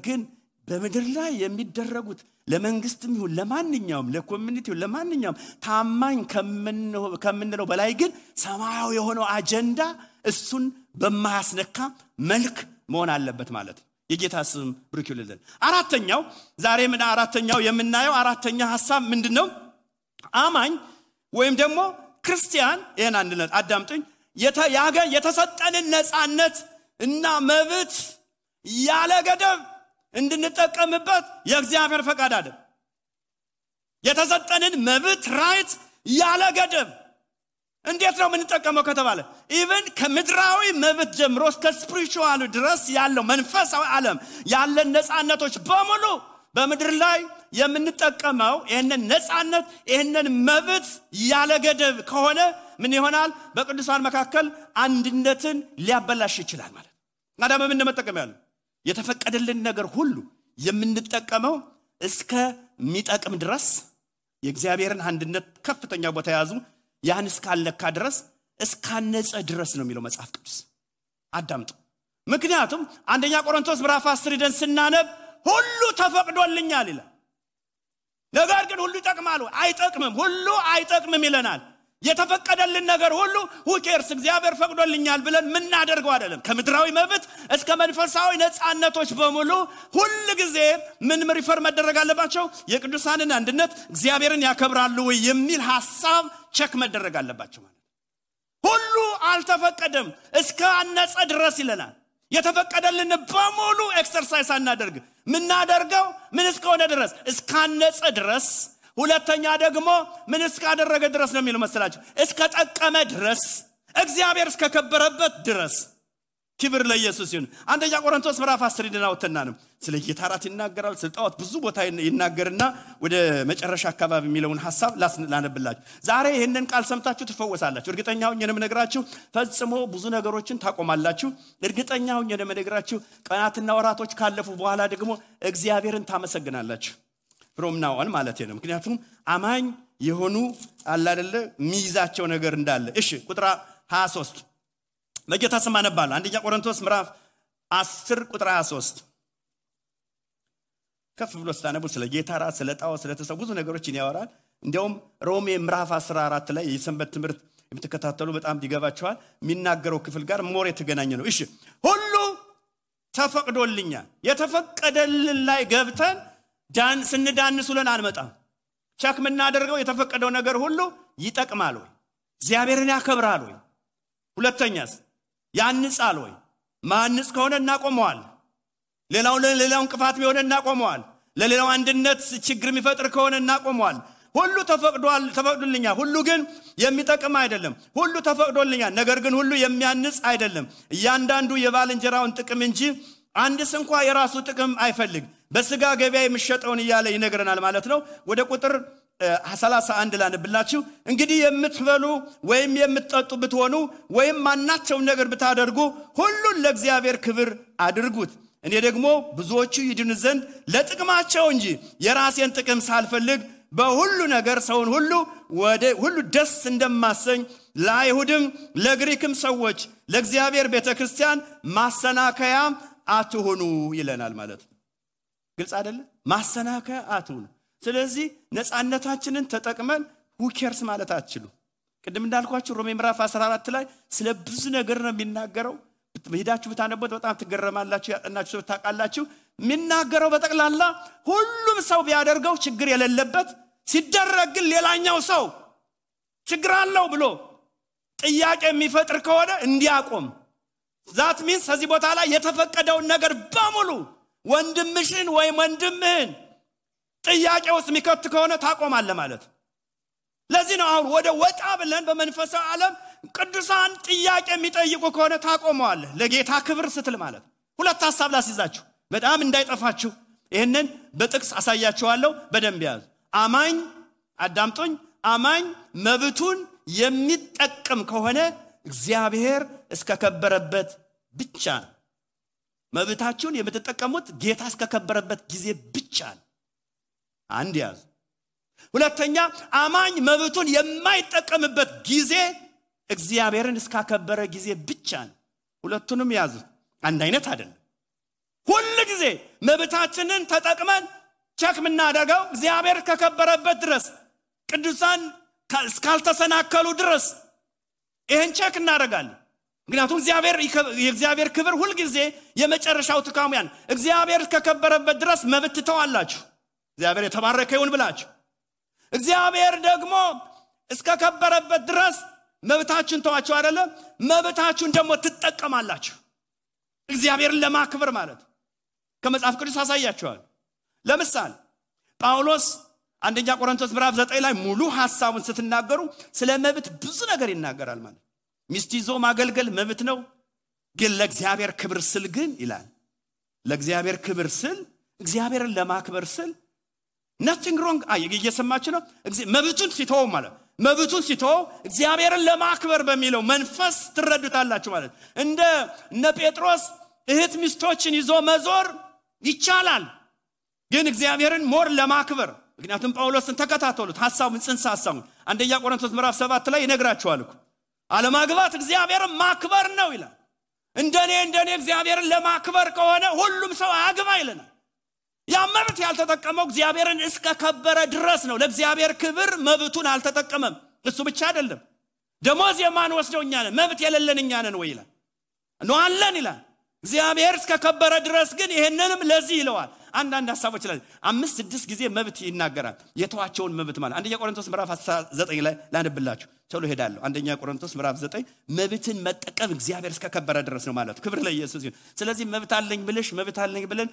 ግን በምድር ላይ የሚደረጉት ለመንግስትም ይሁን ለማንኛውም ለኮሚኒቲው ለማንኛውም ታማኝ ከምንለው በላይ ግን ሰማያዊ የሆነው አጀንዳ እሱን በማያስነካ መልክ መሆን አለበት ማለት ነው የጌታ ስም ብሩክ ይሁንልን አራተኛው ዛሬ ምን አራተኛው የምናየው አራተኛ ሐሳብ ምንድነው አማኝ ወይም ደግሞ ክርስቲያን ይሄን አንድነት አዳምጡኝ የተሰጠንን ነፃነት እና መብት ያለ ገደብ እንድንጠቀምበት የእግዚአብሔር ፈቃድ አይደል የተሰጠንን መብት ራይት ያለ ገደብ እንዴት ነው የምንጠቀመው ከተባለ ኢቭን ከምድራዊ መብት ጀምሮ እስከ ስፒሪቹዋል ድረስ ያለው መንፈሳዊ ዓለም ያለን ነፃነቶች በሙሉ በምድር ላይ የምንጠቀመው ይሄንን ነፃነት ይሄንን መብት ያለ ገደብ ከሆነ ምን ይሆናል? በቅዱሳን መካከል አንድነትን ሊያበላሽ ይችላል ማለት ነው። አዳም ምን መጠቀም ያለው የተፈቀደልን ነገር ሁሉ የምንጠቀመው እስከ ሚጠቅም ድረስ የእግዚአብሔርን አንድነት ከፍተኛ ቦታ ያዙ ያን እስካልነካ ድረስ እስካነጸ ድረስ ነው የሚለው መጽሐፍ ቅዱስ። አዳምጡ። ምክንያቱም አንደኛ ቆሮንቶስ ምዕራፍ 10 ደን ስናነብ ሁሉ ተፈቅዶልኛል ይላል። ነገር ግን ሁሉ ይጠቅማል አይጠቅምም? ሁሉ አይጠቅምም ይለናል። የተፈቀደልን ነገር ሁሉ ሁኬርስ እግዚአብሔር ፈቅዶልኛል ብለን ምን እናደርገው አይደለም። ከምድራዊ መብት እስከ መንፈሳዊ ነፃነቶች በሙሉ ሁሉ ጊዜ ምን ሪፈር መደረግ አለባቸው? የቅዱሳንን አንድነት እግዚአብሔርን ያከብራሉ ወይ የሚል ሐሳብ ቸክ መደረግ አለባቸው ማለት። ሁሉ አልተፈቀደም እስከ አነጸ ድረስ ይለናል። የተፈቀደልን በሙሉ ኤክሰርሳይዝ አናደርግ ምን እናደርገው ምን እስከሆነ ድረስ እስካነጸ ድረስ። ሁለተኛ ደግሞ ምን እስካደረገ ድረስ ነው የሚለው መሰላችሁ? እስከ ጠቀመ ድረስ እግዚአብሔር እስከከበረበት ድረስ። ክብር ለኢየሱስ ይሁን። አንደኛ ቆሮንቶስ ምዕራፍ 10 ድናውተና ነው ስለ ጌታ ራት ይናገራል። ስለ ጣዖት ብዙ ቦታ ይናገርና ወደ መጨረሻ አካባቢ የሚለውን ሐሳብ ላነብላችሁ። ዛሬ ይሄንን ቃል ሰምታችሁ ትፈወሳላችሁ። እርግጠኛ ሆኜ ነው የምነግራችሁ። ፈጽሞ ብዙ ነገሮችን ታቆማላችሁ። እርግጠኛ ሆኜ ነው የምነግራችሁ። ቀናትና ወራቶች ካለፉ በኋላ ደግሞ እግዚአብሔርን ታመሰግናላችሁ። from now on ማለት ነው። ምክንያቱም አማኝ የሆኑ አለ አይደለ ሚይዛቸው ነገር እንዳለ። እሺ ቁጥር 23 በጌታ ስም አነባለሁ። አንደኛ ቆሮንቶስ ምዕራፍ 10 ቁጥር 23 ከፍ ብሎ ስታነቡ ስለ ጌታ ራት ስለ ጣዖት ስለ ተሰው ብዙ ነገሮችን ያወራል። እንዲያውም ሮሜ ምዕራፍ 14 ላይ የሰንበት ትምህርት የምትከታተሉ በጣም ይገባቸዋል። የሚናገረው ክፍል ጋር ሞር የተገናኘ ነው። እሺ ሁሉ ተፈቅዶልኛል። የተፈቀደልን ላይ ገብተን ስንዳንሱልን አንመጣም። ቸክ ምናደርገው የተፈቀደው ነገር ሁሉ ይጠቅማል ወይ? እግዚአብሔርን ያከብራል ወይ? ሁለተኛስ ያንጻል ወይ? ማንጽ ከሆነ እናቆመዋል። ሌላውን እንቅፋት ቢሆን እናቆመዋል። ለሌላው አንድነት ችግር የሚፈጥር ከሆነ እናቆመዋል። ሁሉ ተፈቅዶልኛል። ሁሉ ግን የሚጠቅም አይደለም። ሁሉ ተፈቅዶልኛል፣ ነገር ግን ሁሉ የሚያንጽ አይደለም። እያንዳንዱ የባልንጀራውን ጥቅም እንጂ አንድስ እንኳን የራሱ ጥቅም አይፈልግ። በስጋ ገበያ የሚሸጠውን ይያለ ይነግረናል ማለት ነው። ወደ ቁጥር 31 ላንብላችሁ። እንግዲህ የምትበሉ ወይም የምትጠጡ ብትሆኑ ወይም ማናቸው ነገር ብታደርጉ ሁሉን ለእግዚአብሔር ክብር አድርጉት። እኔ ደግሞ ብዙዎቹ ይድኑ ዘንድ ለጥቅማቸው እንጂ የራሴን ጥቅም ሳልፈልግ በሁሉ ነገር ሰውን ሁሉ ደስ እንደማሰኝ ለአይሁድም ለግሪክም ሰዎች ለእግዚአብሔር ቤተክርስቲያን ማሰናከያ አትሁኑ ይለናል ማለት ነው። ግልጽ አይደለ? ማሰናከያ አትሁኑ። ስለዚህ ነፃነታችንን ተጠቅመን ሁኬርስ ማለት አትችሉ። ቅድም እንዳልኳችሁ ሮሜ ምዕራፍ 14 ላይ ስለ ብዙ ነገር ነው የሚናገረው። ሄዳችሁ ብታነቡት በጣም ትገረማላችሁ። ያጠናችሁ ሰው ታውቃላችሁ። የሚናገረው በጠቅላላ ሁሉም ሰው ቢያደርገው ችግር የሌለበት ሲደረግ ግን ሌላኛው ሰው ችግር አለው ብሎ ጥያቄ የሚፈጥር ከሆነ እንዲያቆም። ዛት ሚንስ ከዚህ ቦታ ላይ የተፈቀደውን ነገር በሙሉ ወንድምሽን ወይም ወንድምህን ጥያቄ ውስጥ የሚከት ከሆነ ታቆማለህ ማለት። ለዚህ ነው አሁን ወደ ወጣ ብለን በመንፈሳዊ ዓለም ቅዱሳን ጥያቄ የሚጠይቁ ከሆነ ታቆመዋለህ ለጌታ ክብር ስትል ማለት። ሁለት ሐሳብ ላስይዛችሁ በጣም እንዳይጠፋችሁ ይሄንን በጥቅስ አሳያችኋለሁ። በደንብ ያዙ። አማኝ አዳምጡኝ። አማኝ መብቱን የሚጠቀም ከሆነ እግዚአብሔር እስከከበረበት ብቻ ነው። መብታችሁን የምትጠቀሙት ጌታ እስከከበረበት ጊዜ ብቻ ነው። አንድ ያዙ። ሁለተኛ አማኝ መብቱን የማይጠቀምበት ጊዜ እግዚአብሔርን እስከከበረ ጊዜ ብቻ ነው። ሁለቱንም ያዙ። አንድ አይነት አይደለም። ሁሉ ጊዜ መብታችንን ተጠቅመን ቸክ ምናደርገው እግዚአብሔር ከከበረበት ድረስ ቅዱሳን እስካልተሰናከሉ ድረስ ይሄን ቸክ እናደርጋለን። ምክንያቱም የእግዚአብሔር ክብር ሁሉ ጊዜ የመጨረሻው ትካሙ ያን እግዚአብሔር ከከበረበት ድረስ መብት ተዋላችሁ እግዚአብሔር የተባረከ ይሁን ብላችሁ እግዚአብሔር ደግሞ እስከከበረበት ድረስ መብታችሁን ተዋችሁ አይደለም መብታችሁን ደግሞ ትጠቀማላችሁ እግዚአብሔርን ለማክበር ማለት ከመጽሐፍ ቅዱስ አሳያችኋል። ለምሳሌ ጳውሎስ አንደኛ ቆሮንቶስ ምዕራፍ 9 ላይ ሙሉ ሐሳቡን ስትናገሩ ስለ መብት ብዙ ነገር ይናገራል ማለት ሚስት ይዞ ማገልገል መብት ነው ግን ለእግዚአብሔር ክብር ስል ግን ይላል ለእግዚአብሔር ክብር ስል እግዚአብሔርን ለማክበር ስል nothing wrong እየሰማችሁ ነው መብቱን ሲተው ማለት መብቱን ሲተው እግዚአብሔርን ለማክበር በሚለው መንፈስ ትረዱታላችሁ ማለት እነ ጴጥሮስ እህት ሚስቶችን ይዞ መዞር ይቻላል ግን እግዚአብሔርን ሞር ለማክበር ምክንያቱም ጳውሎስን ተከታተሉት ሐሳቡን ጽንሰ ሐሳቡን አንደኛ ቆሮንቶስ ምዕራፍ 7 ላይ ይነግራቸዋል እኮ አለማግባት እግዚአብሔርን ማክበር ነው ይላል እንደኔ እግዚአብሔርን ለማክበር ከሆነ ሁሉም ሰው አያግባ ይለናል ያመብት ያልተጠቀመው እግዚአብሔርን እስከ ከበረ ድረስ ነው ለእግዚአብሔር ክብር መብቱን አልተጠቀመም እሱ ብቻ አይደለም ደሞዝ የማን ወስደው እኛ ነን መብት የሌለን እኛ ነን ወይ ይላል ነው አለን ይላል እግዚአብሔር እስከ ከበረ ድረስ ግን ይሄንንም ለዚህ ይለዋል አንዳንድ ሐሳቦች ላይ 5-6 ጊዜ መብት ይናገራል የተዋቸውን መብት ማለት አንደኛ ቆሮንቶስ ምዕራፍ 9 ላይ ላንብላችሁ ቶሎ ሄዳለሁ አንደኛ ቆሮንቶስ ምዕራፍ 9 መብትን መጠቀም እግዚአብሔር እስከ ከበረ ድረስ ነው ማለት ክብር ለኢየሱስ ይሁን ስለዚህ መብት አለኝ ብለን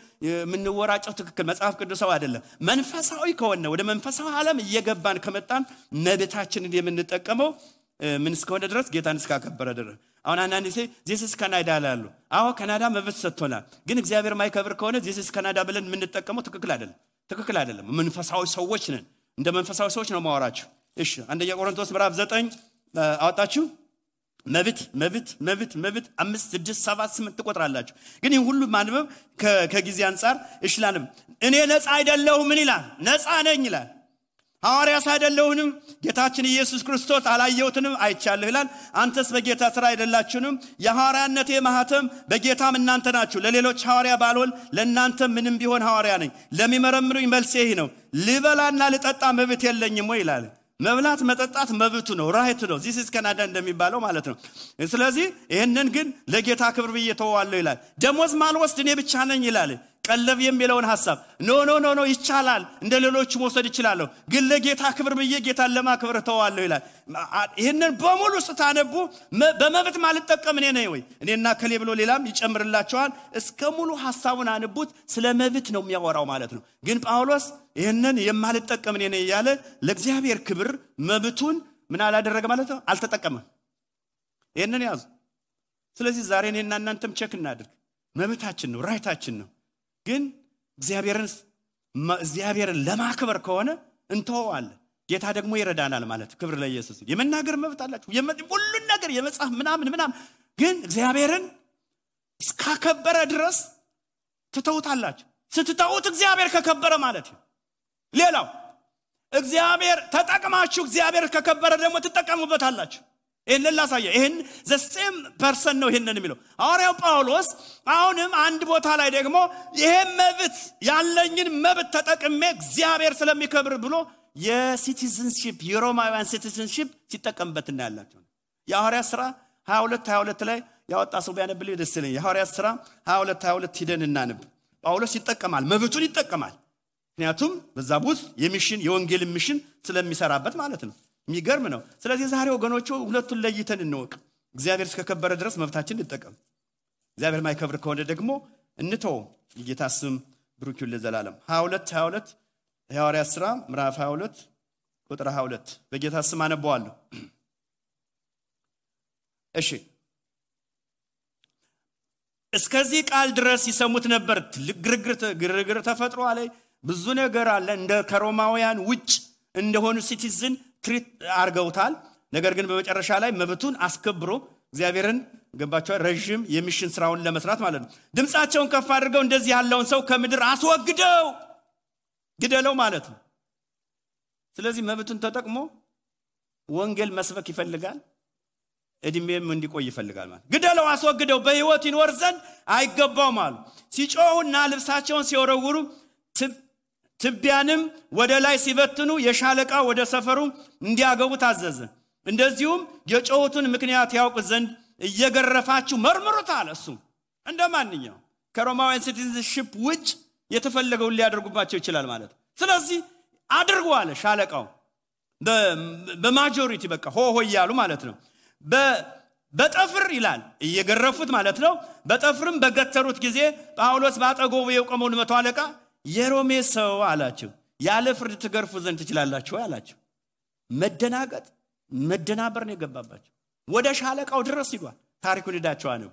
ምንወራጨው ትክክል መጽሐፍ ቅዱሳዊ አይደለም መንፈሳዊ ከሆነ ወደ መንፈሳዊ ዓለም እየገባን ከመጣን መብታችንን የምንጠቀመው ምን እስከሆነ ድረስ ጌታን እስከ ከበረ ድረስ አሁን አንዳንዴ this is Canada ላሉ አዎ ካናዳ መብት ሰጥቶናል ግን እግዚአብሔር ማይከብር ከሆነ this is Canada ብለን የምንጠቀመው ትክክል አይደለም መንፈሳዊ ሰዎች ነን እንደ መንፈሳዊ ሰዎች ነው ማወራችሁ እሺ አንደኛ ቆሮንቶስ ምዕራፍ 9 አወጣችሁ መብት 5 6 7 8 ተቆጥራላችሁ ግን ይሄን ሁሉ ማንበብ ከጊዜ አንፃር እሽላንም እኔ ነፃ አይደለሁም ምን ይላል ነፃ ነኝ ይላል ሐዋርያስ አይደለሁንም ጌታችን ኢየሱስ ክርስቶስ አላየሁትንም አይቻለሁ ይላል አንተስ በጌታ ስራ አይደላችሁንም የሐዋርያነቴ ማህተም በጌታም እናንተ ናችሁ ለሌሎች ሐዋርያ ባልሆን ለእናንተ ምንም ቢሆን ሐዋርያ ነኝ ለሚመረምሩኝ መልሴ ይሄ ነው ልበላና ልጠጣ መብት የለኝም ወይ ይላል መብላት መጠጣት መብቱ ነው ራይት ነው this is Canada እንደሚባለው ማለት ነው ስለዚህ ይሄንን ግን ለጌታ ክብር በየተዋለው ይላል ደሞዝ ማልወስድ እኔ ብቻ ነኝ ይላል ቀለብ የሚለውን ሐሳብ ኖ ይቻላል እንደሌሎች መውሰድ ይችላል ግን ለጌታ ክብር በየጌታን ለማክበር ተዋለው ይላል ይሄንን በሙሉ ስታነቡ በመብት ማልጠቀም እኔ ነኝ ወይ እኔና ከሌ ብሎ ሌላም ይጨምርላቸዋል እስከ ሙሉ ሐሳቡን አንቡት ስለ መብት ነው የሚያወራው ማለት ነው ግን ጳውሎስ ይሄንን የማልጠቀም እኔ ነኝ ያለ ለእግዚአብሔር ክብር መብቱን ምን አላደረገ ማለት ነው አልተጠቀመም ይሄንን ያዙ ስለዚህ ዛሬ እኔና እናንተም ቼክ እናድርግ መብታችን ነው ራይታችን ነው ግን እግዚአብሔርን ለማክበር ከሆነ እንተዋለን ጌታ ደግሞ ይረዳናል ማለት ክብር ለኢየሱስ የመናገር መብት አላችሁ ሁሉ ነገር የመጽሐፍ ምናምን ግን እግዚአብሔርን እስከከበረ ድረስ ትተውታላችሁ ስትተውት እግዚአብሔር ከከበረ ማለት ነው ሌላው እግዚአብሔር ተጠቅማችሁ እግዚአብሔር ከከበረ ደግሞ ትጠቀሙበታላችሁ ይሄን ላሳየ ይሄን the same person ነው ይሄንን የሚለው ሐዋርያው ጳውሎስ አሁንም አንድ ቦታ ላይ ደግሞ ይሄ መብት ያለኝን መብት ተጠቅሜ እግዚአብሔር ስለሚከብር ብሎ የሲቲዝንሺፕ የሮማውያን ሲቲዝንሺፕ ሲጠቀምበት እናያላችሁ የሐዋርያት ሥራ 22 ላይ ያወጣ ሰው ቢያነብልኝ ደስ ይለኛል የሐዋርያት ሥራ 22 ሂደን እናንብ ጳውሎስ ይጠቀማል መብቱን ይጠቀማል ምክንያቱም በዛ ውስጥ የሚሽን የወንጌል ሚሽን ስለሚሰራበት ማለት ነው የሚገርም ነው ስለዚህ ዛሬ ወገኖቹ ሁለቱን ለይተን እንወቅ እግዚአብሔር እስከከበረ ድረስ መብታችን እንጠቀም እግዚአብሔር ማይከብር ከሆነ ደግሞ እንተው የጌታ ስም ብሩክ ይሁን ለዘላለም 22 የሐዋርያት ሥራ ምዕራፍ 22 ቁጥር 22 በጌታ ስም አነባዋለሁ እሺ እስከዚህ ቃል ድረስ ይሰሙት ነበር ግርግር ተፈጥሮ አለ ብዙ ነገር አለ እንደ ከሮማውያን ውጭ እንደሆኑ ሲቲዝን ትሪት አርገውታል ነገር ግን በመጨረሻ ላይ መብቱን አስከብሮ እግዚአብሔርን ገባቸው ረጅም የሚሽን ስራውን ለመስራት ማለት ነው ድምጻቸውን ከፍ አድርገው እንደዚህ ያለውን ሰው ከምድር አስወግደው ግደለው ማለት ነው ስለዚህ መብቱን ተጠቅሞ ወንጌል መስበክ ይፈልጋል እድሜም እንዲቆይ ይፈልጋል ማለት ግደለው አስወግደው በህይወት ይኖር ዘንድ አይገባው ማለት ሲጮሁና ልብሳቸውን ሲወረውሩ ትቢያንም ወደ ላይ ሲበትኑ የሻለቃ ወደ ሰፈሩ እንዲያገቡ ታዘዘ እንደዚሁም የጮሁትን ምክንያት ያውቁ ዘንድ እየገረፋችሁ መርምሩት አለ እሱ እንደማንኛው ከሮማውያን ሲቲዝንሺፕ ውጭ የተፈለገው ሊያደርጉባቸው ይችላል ማለት ስለዚህ አድርጉ አለ ሻለቃው በማጆሪቲ በቃ ሆ ይያሉ ማለት ነው በጠፍር ይላል እየገረፉት ማለት ነው በጠፍርም በገተሩት ጊዜ ጳውሎስ ባጠገቡ የቆመውን መቶ አለቃ የሮሜ ሰው አላቸው ያለ ፍርድ ትገርፉ ዘንድ ትችላላችሁ አላቸው። መደናበር ነው የገባባቸው። ወደ ሻለቃው ድረስ ይጓል። ታሪኩን ሄዳችሁ አነቡ።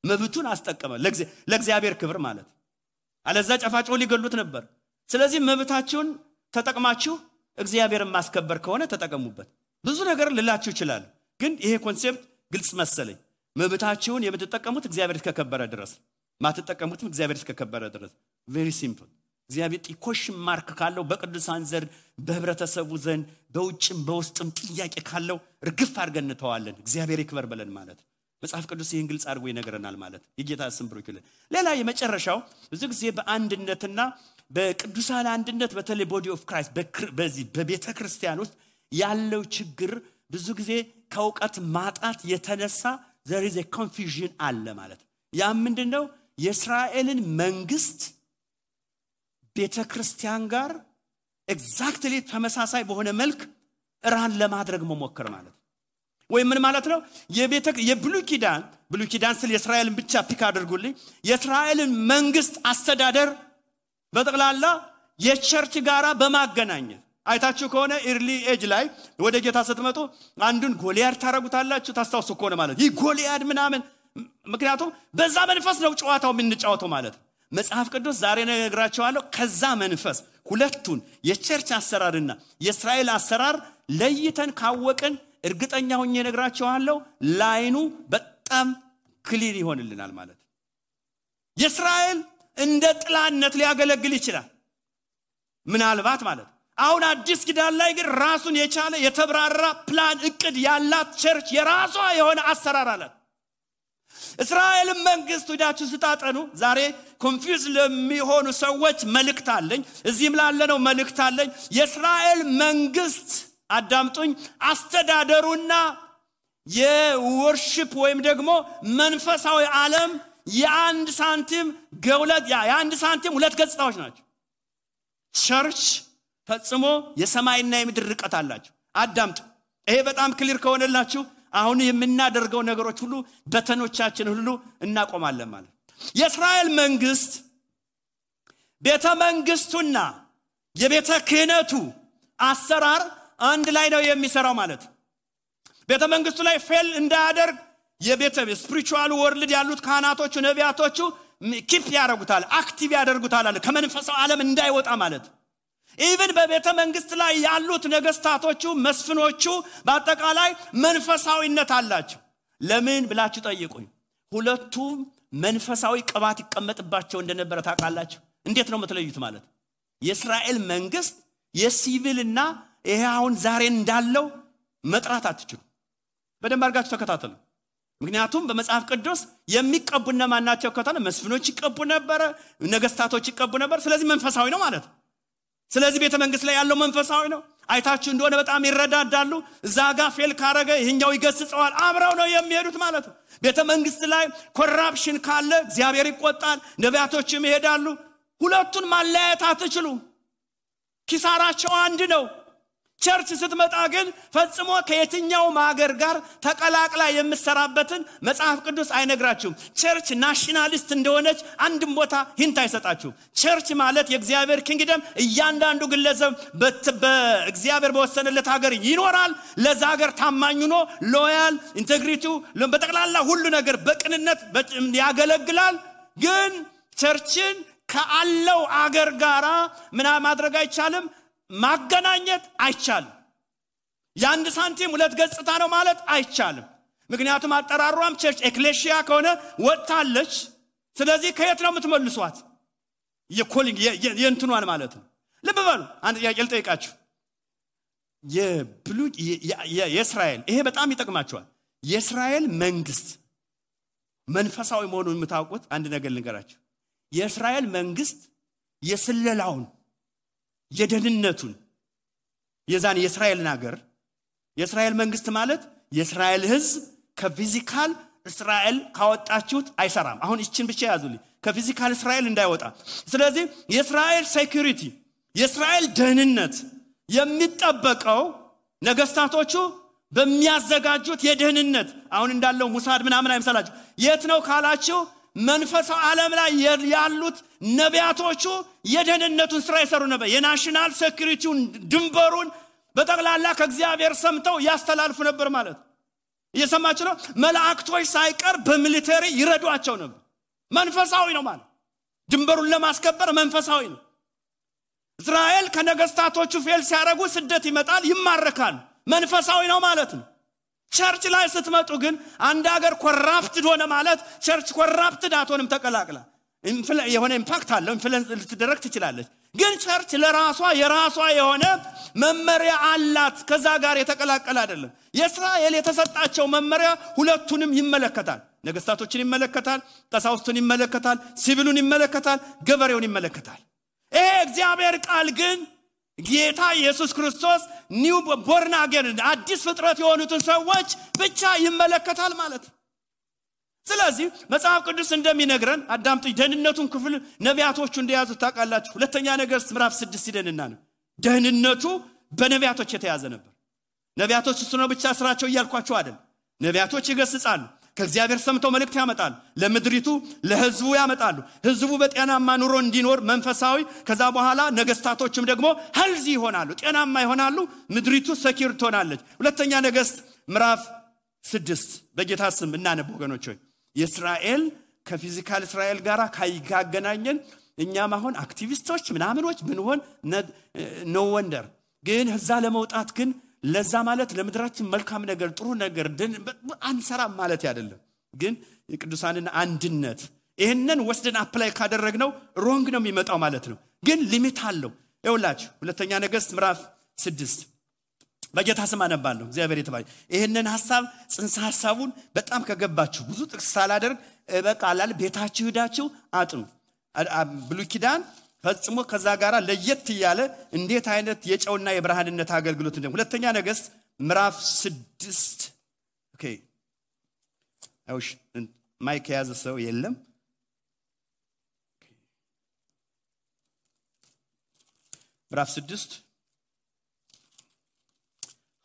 መብቱን አስጠቀመ ለእግዚአብሔር ክብር ማለት። አለዛ ጨፋጭው ሊገሉት ነበር። ስለዚህ መብታችሁን ተጠቅማችሁ እግዚአብሔርን ማስከበር ከሆነ ተጠቀሙበት። ብዙ ነገር ልላችሁ ይችላል፣ ግን ይሄ ኮንሴፕት ግልጽ መሰለኝ። መብታችሁን የምትጠቀሙት እግዚአብሔር እስከከበረ ድረስ፣ ማትጠቀሙትም እግዚአብሔር እስከከበረ ድረስ። ቬሪ ሲምፕል። እግዚአብሔር ጥቆሽ ማርክ ካለው በቅዱሳን ዘንድ በህብረተሰቡ ዘንድ በውጭም በውስጥም ጥያቄ ካለው ርግፍ አድርገን እንተዋለን። እግዚአብሔር ይክበር ብለን ማለት መጽሐፍ ቅዱስ ይህን ግልጽ አድርጎ ይነግረናል ማለት። የጌታ ስም ብሩክ ይሁን። ሌላ የመጨረሻው ብዙ ጊዜ በአንድነትና በቅዱሳን አንድነት በተለይ ቦዲ ኦፍ ክራይስት በዚህ በቤተ ክርስቲያን ውስጥ ያለው ችግር ብዙ ጊዜ ከውቀት ማጣት የተነሳ there is a confusion አለ ማለት። ያ ምንድነው? የእስራኤልን መንግስት ቤተ ክርስቲያን ጋር ኤግዛክትሊ ተመሳሳይ በሆነ መልክ ራን ለማድረግ መሞከር ማለት። ወይ ምን ማለት ነው? የብሉይ ኪዳን ስለ እስራኤልን ብቻ ፒክ አድርጉልኝ። የእስራኤልን መንግስት አስተዳደር በጠቅላላ የቸርች ጋራ በማገናኘት አይታችሁ ከሆነ ኢርሊ ኤጅ ላይ ወደ ጌታ ስትመጡ አንዱን ጎልያድ ታረጉታላችሁ። ታስታውሱ ከሆነ ማለት ይህ ጎልያድ ምናምን፣ ምክንያቱም በዛ መንፈስ ነው ጨዋታው የምንጫወተው ማለት። መጽሐፍ ቅዱስ ዛሬ ነግራችኋለሁ ከዛ መንፈስ ሁለቱን የቸርች አሰራርና የእስራኤል አሰራር ለይተን ካወቅን እርግጠኛ ሆኜ ነግራችኋለሁ ላይኑ በጣም ክሊር ይሆንልናል ማለት። የእስራኤል እንደ ጥላነት ሊያገለግል ይችላል ምናልባት ማለት። አሁን አዲስ ኪዳን ላይ ግን ራሱን የቻለ የተብራራ ፕላን እቅድ ያላት ቸርች የራሷ የሆነ አሰራር አላት። እስራኤል መንግስት ወዳችሁ ስታጠኑ ዛሬ ኮንፊውዝ ለሚሆኑ ሰዎች መልእክት አለኝ። እዚህም ላለነው መልእክት አለኝ። የእስራኤል መንግስት አዳምጡኝ፣ አስተዳደሩና የወርሺፕ ወይም ደግሞ መንፈሳዊ ዓለም የአንድ ሳንቲም ሁለት ገጽታዎች ናቸው። ቸርች ፈጽሞ የሰማይና የምድር ርቀት አላቸው። አዳምጡ። ይሄ በጣም ክሊር ከሆነላችሁ አሁን የምናደርገው ነገሮች ሁሉ በተኖቻችን ሁሉ እናቆማለን ማለት። የእስራኤል መንግስት ቤተ መንግስቱና የቤተ ክህነቱ አሰራር አንድ ላይ ነው የሚሰራው ማለት። ቤተ መንግስቱ ላይ ፌል እንዳያደርግ የቤተ ስፒሪቹዋል ወርልድ ያሉት ካህናቶቹ ነቢያቶቹ ኪፕ ያደርጉታል፣ አክቲቭ ያደርጉታል አለ ከመንፈሳዊ ዓለም እንዳይወጣ ማለት። ኢቭን በቤተ መንግስት ላይ ያሉት ነገስታቶቹ መስፍኖቹ በአጠቃላይ መንፈሳዊነት አላቸው። ለምን ብላችሁ ጠይቁኝ። ሁለቱም መንፈሳዊ ቅባት ይቀመጥባቸው እንደነበረ ታውቃላችሁ። እንዴት ነው የምትለዩት ማለት? የእስራኤል መንግስት የሲቪልና ይሄ አሁን ዛሬ እንዳለው መጥራት አትችሉ። በደንብ አድርጋችሁ ተከታተሉ። ምክንያቱም በመጽሐፍ ቅዱስ የሚቀቡና ማናቸው ከተነ መስፍኖች ይቀቡ ነበር፣ ነገስታቶች ይቀቡ ነበር። ስለዚህ መንፈሳዊ ነው ማለት። ስለዚህ ቤተ መንግስት ላይ ያለው መንፈሳዊ ነው። አይታችሁ እንደሆነ በጣም ይረዳዳሉ። ዛጋ ፌል ካረገ ይሄኛው ይገስጸዋል። አብረው ነው የሚሄዱት ማለት ነው። ቤተ መንግስት ላይ ኮራፕሽን ካለ እግዚአብሔር ይቆጣል፣ ነቢያቶችም ይሄዳሉ። ሁለቱን ማለያየት አትችሉ። ኪሳራቸው አንድ ነው። ቸርች ስትመጣ ግን ፈጽሞ ከየትኛው ማገር ጋር ተቀላቅላ የምትሰራበትን መጽሐፍ ቅዱስ አይነግራችሁም። ቸርች ናሽናሊስት እንደሆነች አንድም ቦታ ሂንት አይሰጣችሁም። ቸርች ማለት የእግዚአብሔር ኪንግደም እያንዳንዱ ግለሰብ በእግዚአብሔር በወሰነለት ሀገር ይኖራል። ለዛ ሀገር ታማኝ ሆኖ ሎያል ኢንቴግሪቲው በጠቅላላ ሁሉ ነገር በቅንነት ያገለግላል። ግን ቸርችን ከአለው አገር ጋራ ምናምን ማድረግ አይቻልም፣ ማገናኘት አይቻልም። የአንድ ሳንቲም ሁለት ገጽታ ነው ማለት አይቻልም። ምክንያቱም አጠራሯም ቸርች ኤክሌሺያ ከሆነ ወጣለች። ስለዚህ ከየት ነው የምትመልሷት? የኮሊንግ የእንትኗን ማለት ነው። ልብ በሉ። አንድ ጥያቄ ልጠይቃችሁ። የእስራኤል ይሄ በጣም ይጠቅማችኋል። የእስራኤል መንግስት መንፈሳዊ መሆኑን የምታውቁት አንድ ነገር ልንገራችሁ። የእስራኤል መንግስት የስለላውን የደህንነቱን የዛን የእስራኤልን ሀገር የእስራኤል መንግስት ማለት የእስራኤል ህዝብ ከፊዚካል እስራኤል ካወጣችሁት አይሰራም። አሁን እቺን ብቻ ያዙልኝ፣ ከፊዚካል እስራኤል እንዳይወጣ። ስለዚህ የእስራኤል ሴኩሪቲ የእስራኤል ደህንነት የሚጠበቀው ነገስታቶቹ በሚያዘጋጁት የደህንነት አሁን እንዳለው ሙሳድ ምናምን አይመስላችሁ። የት ነው ካላችሁ መንፈሳዊ ዓለም ላይ ያሉት ነቢያቶቹ የደህንነቱን ስራ ይሰሩ ነበር። የናሽናል ሴኩሪቲውን ድንበሩን በጠቅላላ ከእግዚአብሔር ሰምተው ያስተላልፉ ነበር ማለት እየሰማችሁ ነው። መላእክቶች ሳይቀር በሚሊተሪ ይረዷቸው ነበር። መንፈሳዊ ነው ማለት ድንበሩን ለማስከበር መንፈሳዊ ነው። እስራኤል ከነገስታቶቹ ፌል ሲያረጉ ስደት ይመጣል፣ ይማረካል። መንፈሳዊ ነው ማለት ነው። ቸርች ላይ ስትመጡ ግን አንድ ሀገር ኮራፕትድ ሆነ ማለት ቸርች ኮራፕትድ አትሆንም። ተቀላቅላ የሆነ ኢምፓክት አለው፣ ኢንፍሉዌንስ ልትደረግ ትችላለች። ግን ቸርች ለራሷ የራሷ የሆነ መመሪያ አላት። ከዛ ጋር የተቀላቀለ አይደለም። የእስራኤል የተሰጣቸው መመሪያ ሁለቱንም ይመለከታል። ነገስታቶችን ይመለከታል፣ ቀሳውስቱን ይመለከታል፣ ሲቪሉን ይመለከታል፣ ገበሬውን ይመለከታል። ይሄ እግዚአብሔር ቃል ግን ጌታ ኢየሱስ ክርስቶስ ኒው ቦርን አገን አዲስ ፍጥረት የሆኑትን ሰዎች ብቻ ይመለከታል ማለት። ስለዚህ መጽሐፍ ቅዱስ እንደሚነግረን አዳምጡ። ደህንነቱን ክፍል ነቢያቶቹ እንደያዙት ታውቃላችሁ። ሁለተኛ ነገሥት ምዕራፍ 6 ይደንና ነው ደህንነቱ በነቢያቶች የተያዘ ነበር። ነቢያቶች እሱ ነው ብቻ ስራቸው እያልኳቸው አይደል። ነቢያቶች ይገስጻሉ፣ ከእግዚአብሔር ሰምተው መልእክት ያመጣሉ፣ ለምድሪቱ ለህዝቡ ያመጣሉ። ህዝቡ በጤናማ ኑሮ እንዲኖር መንፈሳዊ፣ ከዛ በኋላ ነገስታቶችም ደግሞ ሄልዚ ይሆናሉ፣ ጤናማ ይሆናሉ፣ ምድሪቱ ሰኪር ትሆናለች። ሁለተኛ ነገሥት ምዕራፍ 6 በጌታ ስም እናነብ ወገኖች ሆይ። የእስራኤል ከፊዚካል እስራኤል ጋራ ካይጋገናኘን እኛም አሁን አክቲቪስቶች ምናምኖች ብንሆን ኖ ወንደር። ግን እዛ ለመውጣት ግን ለዛ ማለት ለምድራችን መልካም ነገር ጥሩ ነገር አንሰራም ማለት አይደለም። ግን የቅዱሳንን አንድነት ይሄንን ወስደን አፕላይ ካደረግነው ሮንግ ነው የሚመጣው ማለት ነው። ግን ሊሚት አለው። ይኸውላችሁ ሁለተኛ ነገሥት ምዕራፍ 6 በጌታ ስም አነባለሁ። እግዚአብሔር ይተባረክ። ይሄንን ሐሳብ ጽንሰ ሐሳቡን በጣም ከገባችሁ ብዙ ጥቅስ ሳላደርግ በቃላል ቤታችሁ ሄዳችሁ አጥኑ። ብሉይ ኪዳን ፈጽሞ ከዛ ጋራ ለየት ያለ እንዴት አይነት የጨውና የብርሃንነት አገልግሎት እንደም ሁለተኛ ነገሥት ምዕራፍ 6 ኦኬ አይውሽ ማይክ ያዘ ሰው የለም። ምዕራፍ 6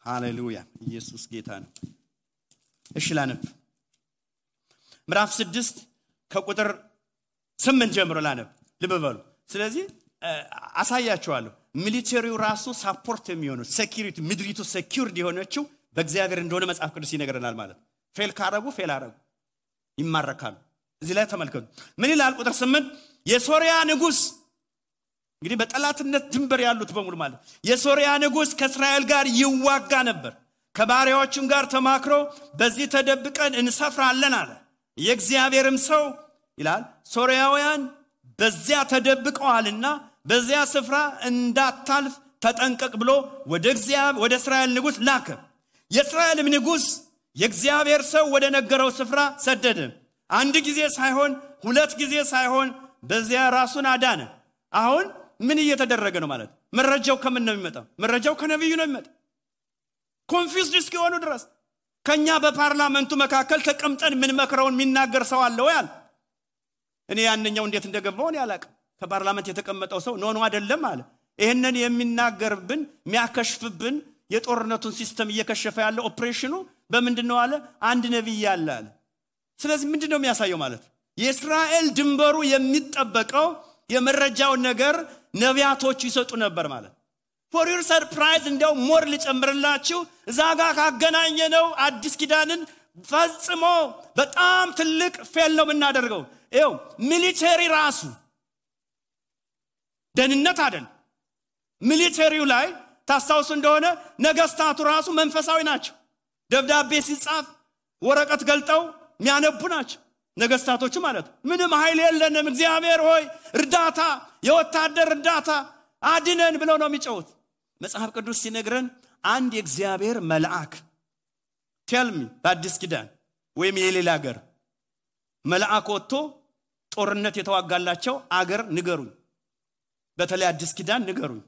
ሃሌሉያ ኢየሱስ ጌታ ነው። እሺ ላነብ። ምዕራፍ 6 ከቁጥር 8 ጀምሮ ላነብ። ልብ በሉ። ስለዚህ አሳያችኋለሁ። ሚሊተሪው ራሱ ሳፖርት የሚሆነው ሴኩሪቲ ምድሪቱ ሴኩርድ የሆነችው በእግዚአብሔር እንደሆነ መጽሐፍ ቅዱስ ይነግረናል ማለት። ፌል ካረጉ ፌል አረጉ ይማረካሉ። እዚህ ላይ ተመልከቱ ምን ይላል ቁጥር 8 የሶሪያ ንጉስ እንግዲህ በጠላትነት ድንበር ያሉት በሙሉ ማለት የሶሪያ ንጉስ ከእስራኤል ጋር ይዋጋ ነበር። ከባሪያዎቹም ጋር ተማክሮ በዚህ ተደብቀን እንሰፍራለን አለ። የእግዚአብሔርም ሰው ይላል ሶሪያውያን በዚያ ተደብቀዋልና በዚያ ስፍራ እንዳታልፍ ተጠንቀቅ ብሎ ወደ እስራኤል ንጉስ ላከ። የእስራኤልም ንጉስ የእግዚአብሔር ሰው ወደ ነገረው ስፍራ ሰደደ። አንድ ጊዜ ሳይሆን ሁለት ጊዜ ሳይሆን በዚያ ራሱን አዳነ። አሁን ምን እየተደረገ ነው ማለት? መረጃው ከምን ነው የሚመጣው? መረጃው ከነብዩ ነው የሚመጣው። ኮንፊውዝድ እስኪሆኑ ድረስ ከኛ በፓርላመንቱ መካከል ተቀምጠን ምን መከረውን የሚናገር ሰው አለ ወይ አለ። እኔ ያንኛው እንዴት እንደገባው እኔ አላውቅም። ከፓርላመንት የተቀመጠው ሰው ኖ አይደለም አለ። ይሄንን የሚናገርብን የሚያከሽፍብን የጦርነቱን ሲስተም እየከሸፈ ያለው ኦፕሬሽኑ በምንድነው አለ? አንድ ነብይ አለ አለ። ስለዚህ ምንድነው የሚያሳየው ማለት? የእስራኤል ድንበሩ የሚጠበቀው የመረጃው ነገር ነቢያቶች ይሰጡ ነበር ማለት። for your surprise እንደው ሞር ልጨምርላችሁ እዛጋ ካገናኘነው አዲስ ኪዳንን ፈጽሞ በጣም ትልቅ ፌል ነው የምናደርገው። ይኸው ሚሊተሪ ራሱ ደህንነት አይደል? ሚሊተሪው ላይ ታስታውሱ እንደሆነ ነገስታቱ ራሱ መንፈሳዊ ናቸው። ደብዳቤ ሲጻፍ ወረቀት ገልጠው የሚያነቡ ናቸው ነገስታቶቹ ማለት። ምንም ኃይል የለንም እግዚአብሔር ሆይ እርዳታ፣ የወታደር እርዳታ አድነን ብለው ነው የሚጮሁት። መጽሐፍ ቅዱስ ሲነግረን አንድ የእግዚአብሔር መልአክ ቴልሚ በአዲስ ኪዳን ወይም የሌላ ሀገር መልአክ ወጥቶ ጦርነት የተዋጋላቸው አገር ንገሩኝ። በተለይ አዲስ ኪዳን ንገሩኝ።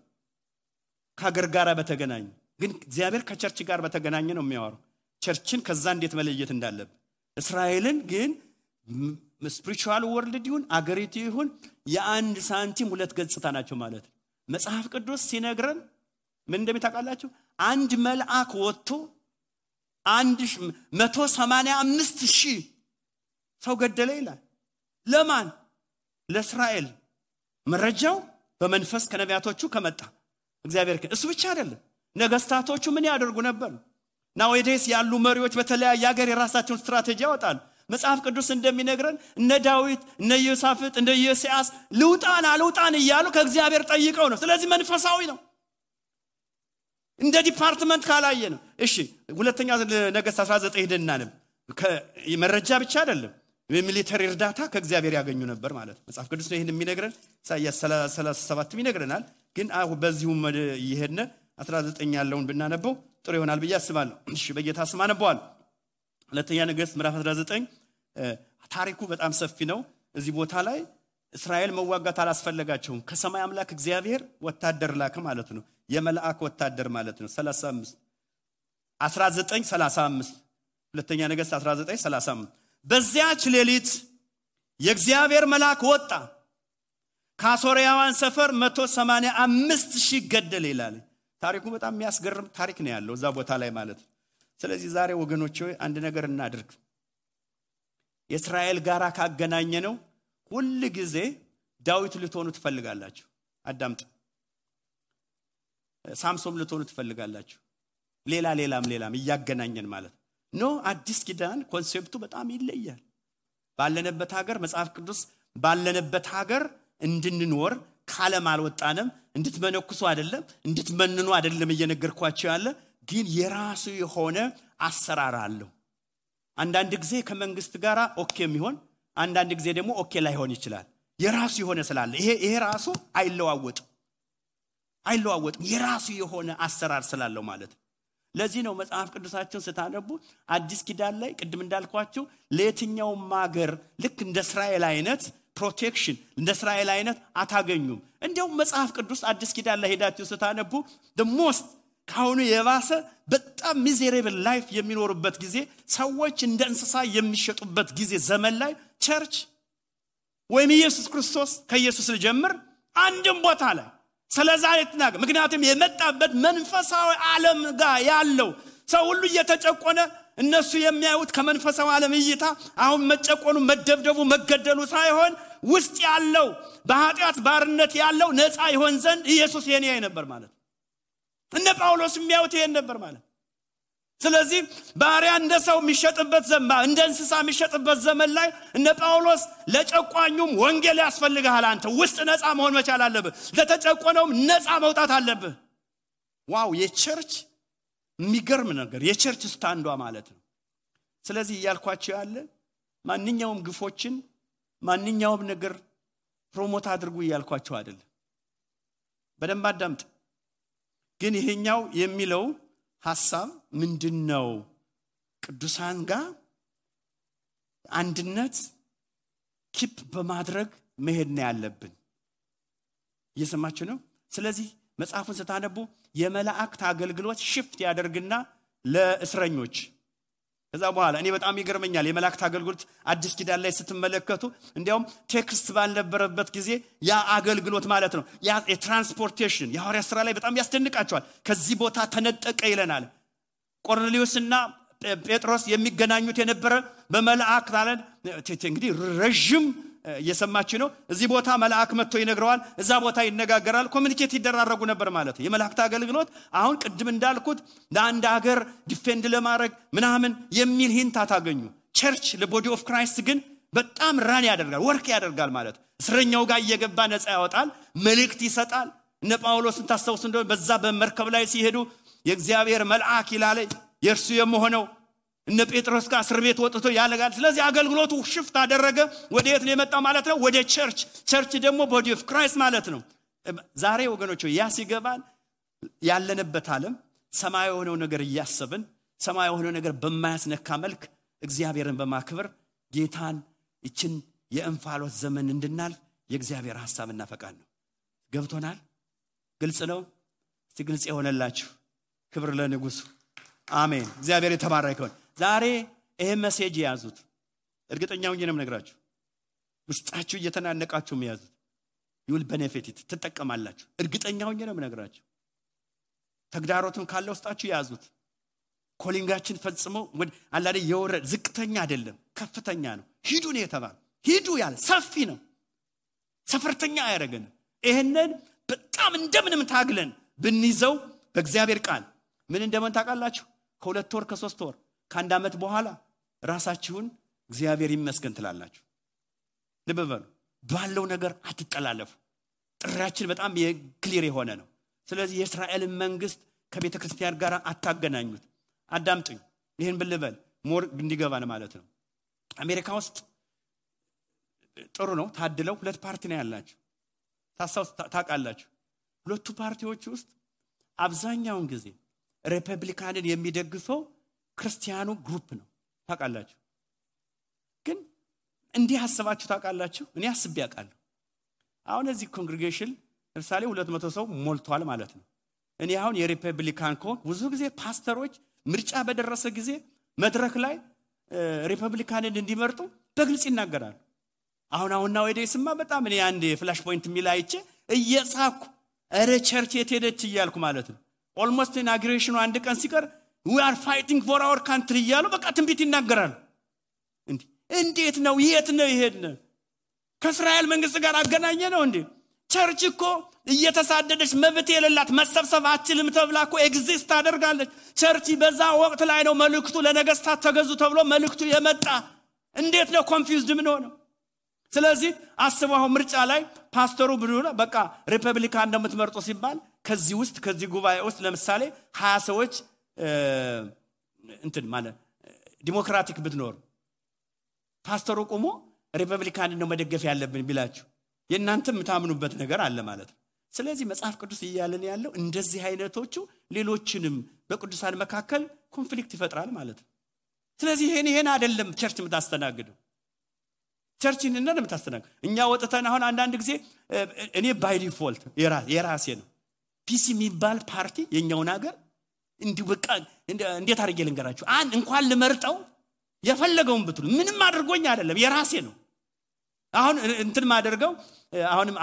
ከሀገር ጋር በተገናኘ ግን እግዚአብሔር ከቸርች ጋር በተገናኘ ነው የሚያወራው። ቸርችን ከዛ እንዴት መለየት እንዳለብን። እስራኤልን ግን ስፒሪቹዋል ወርልድ ይሁን አገሪቱ ይሁን የአንድ ሳንቲም ሁለት ገጽታ ናቸው ማለት። መጽሐፍ ቅዱስ ሲነግረን ምን እንደሚታውቃላችሁ? አንድ መልአክ ወጥቶ 185,000 ሰው ገደለ ይላል። ለማን? ለእስራኤል። መረጃው በመንፈስ ከነቢያቶቹ ከመጣ እግዚአብሔር እሱ ብቻ አይደለም። ነገስታቶቹ ምን ያደርጉ ነበር? ናውዴስ ያሉ መሪዎች በተለያየ ሀገር የራሳቸውን ስትራቴጂ ያወጣሉ። መጽሐፍ ቅዱስ እንደሚነግረን እነ ዳዊት እነ ዮሳፍጥ እነ ኢዮስያስ ልውጣን እያሉ ከእግዚአብሔር ጠይቀው ነው። ስለዚህ መንፈሳዊ ነው። እንደ ዲፓርትመንት ካላየ ነው። እሺ ሁለተኛ ነገሥት 19 ሄደና ነው። መረጃ ብቻ አይደለም የሚሊተሪ እርዳታ ከእግዚአብሔር ያገኙ ነበር ማለት ነው። መጽሐፍ ቅዱስ ነው ይሄን የሚነግረን። ኢሳይያስ 37 ይነግረናል። ግን በዚሁ ይሄድነ 19 ያለውን ብናነበው ጥሩ ይሆናል ብዬ አስባለሁ። እሺ በጌታ ስም አነበዋለሁ። ሁለተኛ ነገሥት ምዕራፍ 19 ታሪኩ በጣም ሰፊ ነው። እዚህ ቦታ ላይ እስራኤል መዋጋት አላስፈልጋቸውም። ከሰማይ አምላክ እግዚአብሔር ወታደር ላከ ማለት ነው። የመላእክ ወታደር ማለት ነው። 19:35 ሁለተኛ ነገሥት 19:35 በዚያች ሌሊት የእግዚአብሔር መልአክ ወጣ፣ ከሶርያውያን ሰፈር 185,000 ገደለ ይላል። ታሪኩ በጣም የሚያስገርም ታሪክ ነው ያለው እዛ ቦታ ላይ ማለት ነው። ስለዚህ ዛሬ ወገኖቼ አንድ ነገር እናድርግ። የእስራኤል ጋራ ካገናኘ ነው ሁሉ ጊዜ ዳዊት ልትሆኑ ትፈልጋላችሁ። አዳምጡ። ሳምሶን ልትሆኑ ትፈልጋላችሁ። ሌላም እያገናኘን ማለት ነው። አዲስ ኪዳን ኮንሴፕቱ በጣም ይለያል። ባለነበት ሀገር መጽሐፍ ቅዱስ ባለነበት ሀገር እንድንኖር ካለም አልወጣንም። እንድትመነኩሱ አይደለም እንድትመንኑ አይደለም እየነገርኳችሁ ያለ፣ ግን የራሱ የሆነ አሰራር አለው። አንዳንድ ጊዜ ከመንግስት ጋራ ኦኬ የሚሆን አንዳንድ ጊዜ ደግሞ ኦኬ ላይሆን ይችላል። የራሱ የሆነ ስላለ ይሄ ራሱ አይለዋወጥም። የራሱ የሆነ አሰራር ስላለው ማለት ነው። ለዚህ ነው መጽሐፍ ቅዱሳችሁን ስታነቡ አዲስ ኪዳን ላይ ቅድም እንዳልኳችሁ ለየትኛውም ሀገር ልክ እንደ እስራኤል አይነት ፕሮቴክሽን እንደ እስራኤል አይነት አታገኙም። እንደውም መጽሐፍ ቅዱስ አዲስ ኪዳን ላይ ሄዳችሁ ስታነቡ the most ካሁኑ የባሰ በጣም ሚዘሬብል ላይፍ የሚኖርበት ጊዜ፣ ሰዎች እንደ እንስሳ የሚሸጡበት ጊዜ ዘመን ላይ ቸርች ወይም ኢየሱስ ክርስቶስ ከኢየሱስ ልጀምር አንድም ቦታ ላይ ስለዛ ይተናገ። ምክንያቱም የመጣበት መንፈሳዊ ዓለም ጋር ያለው ሰው ሁሉ እየተጨቆነ እነሱ የሚያዩት ከመንፈሳዊ ዓለም እይታ አሁን መጨቆኑ መደብደቡ መገደሉ ሳይሆን ውስጥ ያለው በኃጢአት ባርነት ያለው ነፃ ይሆን ዘንድ ኢየሱስ የኔ ነበር ማለት እነ ጳውሎስ የሚያዩት ይሄን ነበር ማለት። ስለዚህ ባሪያ እንደ ሰው የሚሸጥበት ዘመን እንደ እንስሳ የሚሸጥበት ዘመን ላይ እነ ጳውሎስ ለጨቋኙም ወንጌል ያስፈልጋል። አንተ ውስጥ ነፃ መሆን መቻል አለብህ። ለተጨቆነውም ነፃ መውጣት አለብህ። ዋው! የቸርች የሚገርም ነገር የቸርች ስታንዷ ማለት ነው። ስለዚህ እያልኳችሁ ያለ ማንኛውም ግፎችን ማንኛውም ነገር ፕሮሞት አድርጉ እያልኳችሁ አይደለም። በደንብ አዳምጥ። ግን ይሄኛው የሚለው ሐሳብ ምንድነው? ቅዱሳን ጋር አንድነት ኪፕ በማድረግ መሄድ ነው ያለብን። እየሰማችሁ ነው? ስለዚህ መጽሐፉን ስታነቡ የመላእክት አገልግሎት ሽፍት ያደርግና ለእስረኞች ከዛ በኋላ እኔ በጣም ይገርመኛል የመላእክት አገልግሎት አዲስ ኪዳን ላይ ስትመለከቱ እንዲያውም ቴክስት ባልነበረበት ጊዜ ያ አገልግሎት ማለት ነው ያ የትራንስፖርቴሽን የሐዋርያት ሥራ ላይ በጣም ያስደንቃቸዋል። ከዚህ ቦታ ተነጠቀ ይለናል። ቆርኔሌዎስና ጴጥሮስ የሚገናኙት የነበረ በመላእክት ማለት እንግዲህ ረጅም እየሰማችሁ ነው። እዚህ ቦታ መልአክ መጥቶ ይነግረዋል፣ እዛ ቦታ ይነጋገራል፣ ኮሙኒኬት ይደራረጉ ነበር ማለት ነው። የመላእክት አገልግሎት አሁን ቅድም እንዳልኩት ለአንድ ሀገር ዲፌንድ ለማድረግ ምናምን የሚል ሂንት አታገኙ። ቸርች ለቦዲ ኦፍ ክራይስት ግን በጣም ራን ያደርጋል፣ ወርክ ያደርጋል ማለት ነው። እስረኛው ጋር እየገባ ነፃ ያወጣል፣ መልእክት ይሰጣል። እነ ጳውሎስን ታስተውሱ እንደሆነ በዛ በመርከብ ላይ ሲሄዱ የእግዚአብሔር መልአክ ይላል የእርሱ የመሆነው እነ ጴጥሮስ ጋር እስር ቤት ወጥቶ ያለጋል። ስለዚህ አገልግሎቱ ሽፍት አደረገ። ወዴት ነው የመጣው ማለት ነው? ወደ ቸርች። ቸርች ደግሞ ቦዲ ኦፍ ክራይስት ማለት ነው። ዛሬ ወገኖች ያ ሲገባን ያለንበት ዓለም ሰማያዊ የሆነው ነገር እያሰብን ሰማያዊ የሆነው ነገር በማያስነካ መልክ እግዚአብሔርን በማክበር ጌታን እቺን የእንፋሎት ዘመን እንድናልፍ የእግዚአብሔር ሐሳብና ፈቃድ ነው። ገብቶናል? ግልጽ ነው? እስቲ ግልጽ የሆነላችሁ ክብር ለንጉሱ። አሜን። እግዚአብሔር የተባረከ ይሁን። ዛሬ ይሄ ሜሴጅ ያዙት። እርግጠኛው ነኝ ነግራችሁ ውስጣችሁ እየተናነቃችሁ ያዙት። you will benefit it ትጠቀማላችሁ። እርግጠኛው ነኝ ነግራችሁ ተግዳሮቱን ካለ ውስጣችሁ ያዙት። ኮሊንጋችን ፈጽሞ አላደ የወረደ ዝቅተኛ አይደለም ከፍተኛ ነው። ሂዱ ነው የተባለ ሂዱ ያለ ሰፊ ነው ሰፈርተኛ ያረገን ይሄንን በጣም እንደምንም ታግለን ብንይዘው በእግዚአብሔር ቃል ምን እንደምን ታውቃላችሁ ከ2 ወር ከ3 ወር ከአንድ አመት በኋላ ራሳችሁን እግዚአብሔር ይመስገን ትላላችሁ ልበበሉ ባለው ነገር አትጠላለፉ ጥራችን በጣም የክሊር የሆነ ነው ስለዚህ የእስራኤል መንግስት ከቤተ ክርስቲያን ጋር አታገናኙት አዳምጡኝ ይሄን ብልበል ሞር እንዲገባን ማለት ነው አሜሪካ ውስጥ ጥሩ ነው ታድለው ሁለት ፓርቲ ነው ያላችሁ ታውቃላችሁ ሁለቱ ፓርቲዎች ውስጥ አብዛኛውን ጊዜ ሪፐብሊካንን የሚደግፈው ክርስቲያኑ ግሩፕ ነው ታውቃላችሁ ግን እንዲህ ሐሳባችሁ ታውቃላችሁ እኔ አስቤ ያውቃለሁ አሁን እዚህ ኮንግሪጌሽን ለምሳሌ 200 ሰው ሞልቷል ማለት ነው እኔ አሁን የሪፐብሊካን ብዙ ጊዜ ፓስተሮች ምርጫ በደረሰ ጊዜ መድረክ ላይ ሪፐብሊካንን እንዲመርጡ በግልጽ ይናገራሉ አሁን ነው ወዴስማ በጣም እኔ አንድ ፍላሽ ፖይንት ሚላይቼ እየጻኩ አረ ቸርች የትሄደች ይያልኩ ማለት ነው ኦልሞስት ኢናግሬሽኑ አንድ ቀን ሲቀር we are fighting for our country ይያሉ በቃ ትንቢት ይናገራሉ እንዴት ነው የት ነው ይሄድነ ከእስራኤል መንግስት ጋር አገናኘ ነው እንዴ ቸርች እኮ እየተሳደደች መብት የሌላት መሰብሰብ አትችልም ተብላኮ ኤግዚስት አደርጋለች ቸርች በዛ ወቅት ላይ ነው መልእክቱ ለነገስታት ተገዙ ተብሎ መልእክቱ የመጣ እንዴት ነው ኮንፊውዝድ ምን ሆነ ስለዚህ አስበው ምርጫ ላይ ፓስተሩ ብሎ በቃ ሪፐብሊካን እንደምትመርጡ ሲባል ከዚህ ጉባኤ ውስጥ ለምሳሌ 20 ሰዎች እንትን ማለት ዲሞክራቲክ ብትኖር ፓስተሩ ቆሞ ሪፐብሊካን ነው መደገፍ ያለብን ቢላችሁ የእናንተ የምታምኑበት ነገር አለ ማለት ነው ስለዚህ መጽሐፍ ቅዱስ ይያለን ያለው እንደዚህ አይነቶቹ ሌሎችንም በቅዱሳን መካከል ኮንፍሊክት ይፈጥራል ማለት ነው ስለዚህ ይሄን አይደለም ቸርች የምታስተናግደው ቸርችን እንደም ታስተናግዱ እኛ ወጥተን አሁን አንድ ጊዜ እኔ ባይ ዲፎልት የራሴ ነው ፒሲ የሚባል ፓርቲ የኛው ነገር እንዲሁ በቃ እንዴት አድርጌ ልንገራችሁ እንኳን ልመርጠው የፈለገውን ብትሉ ምንም አድርጎኝ አይደለም የራሴ ነው አሁን እንትን ማደርገው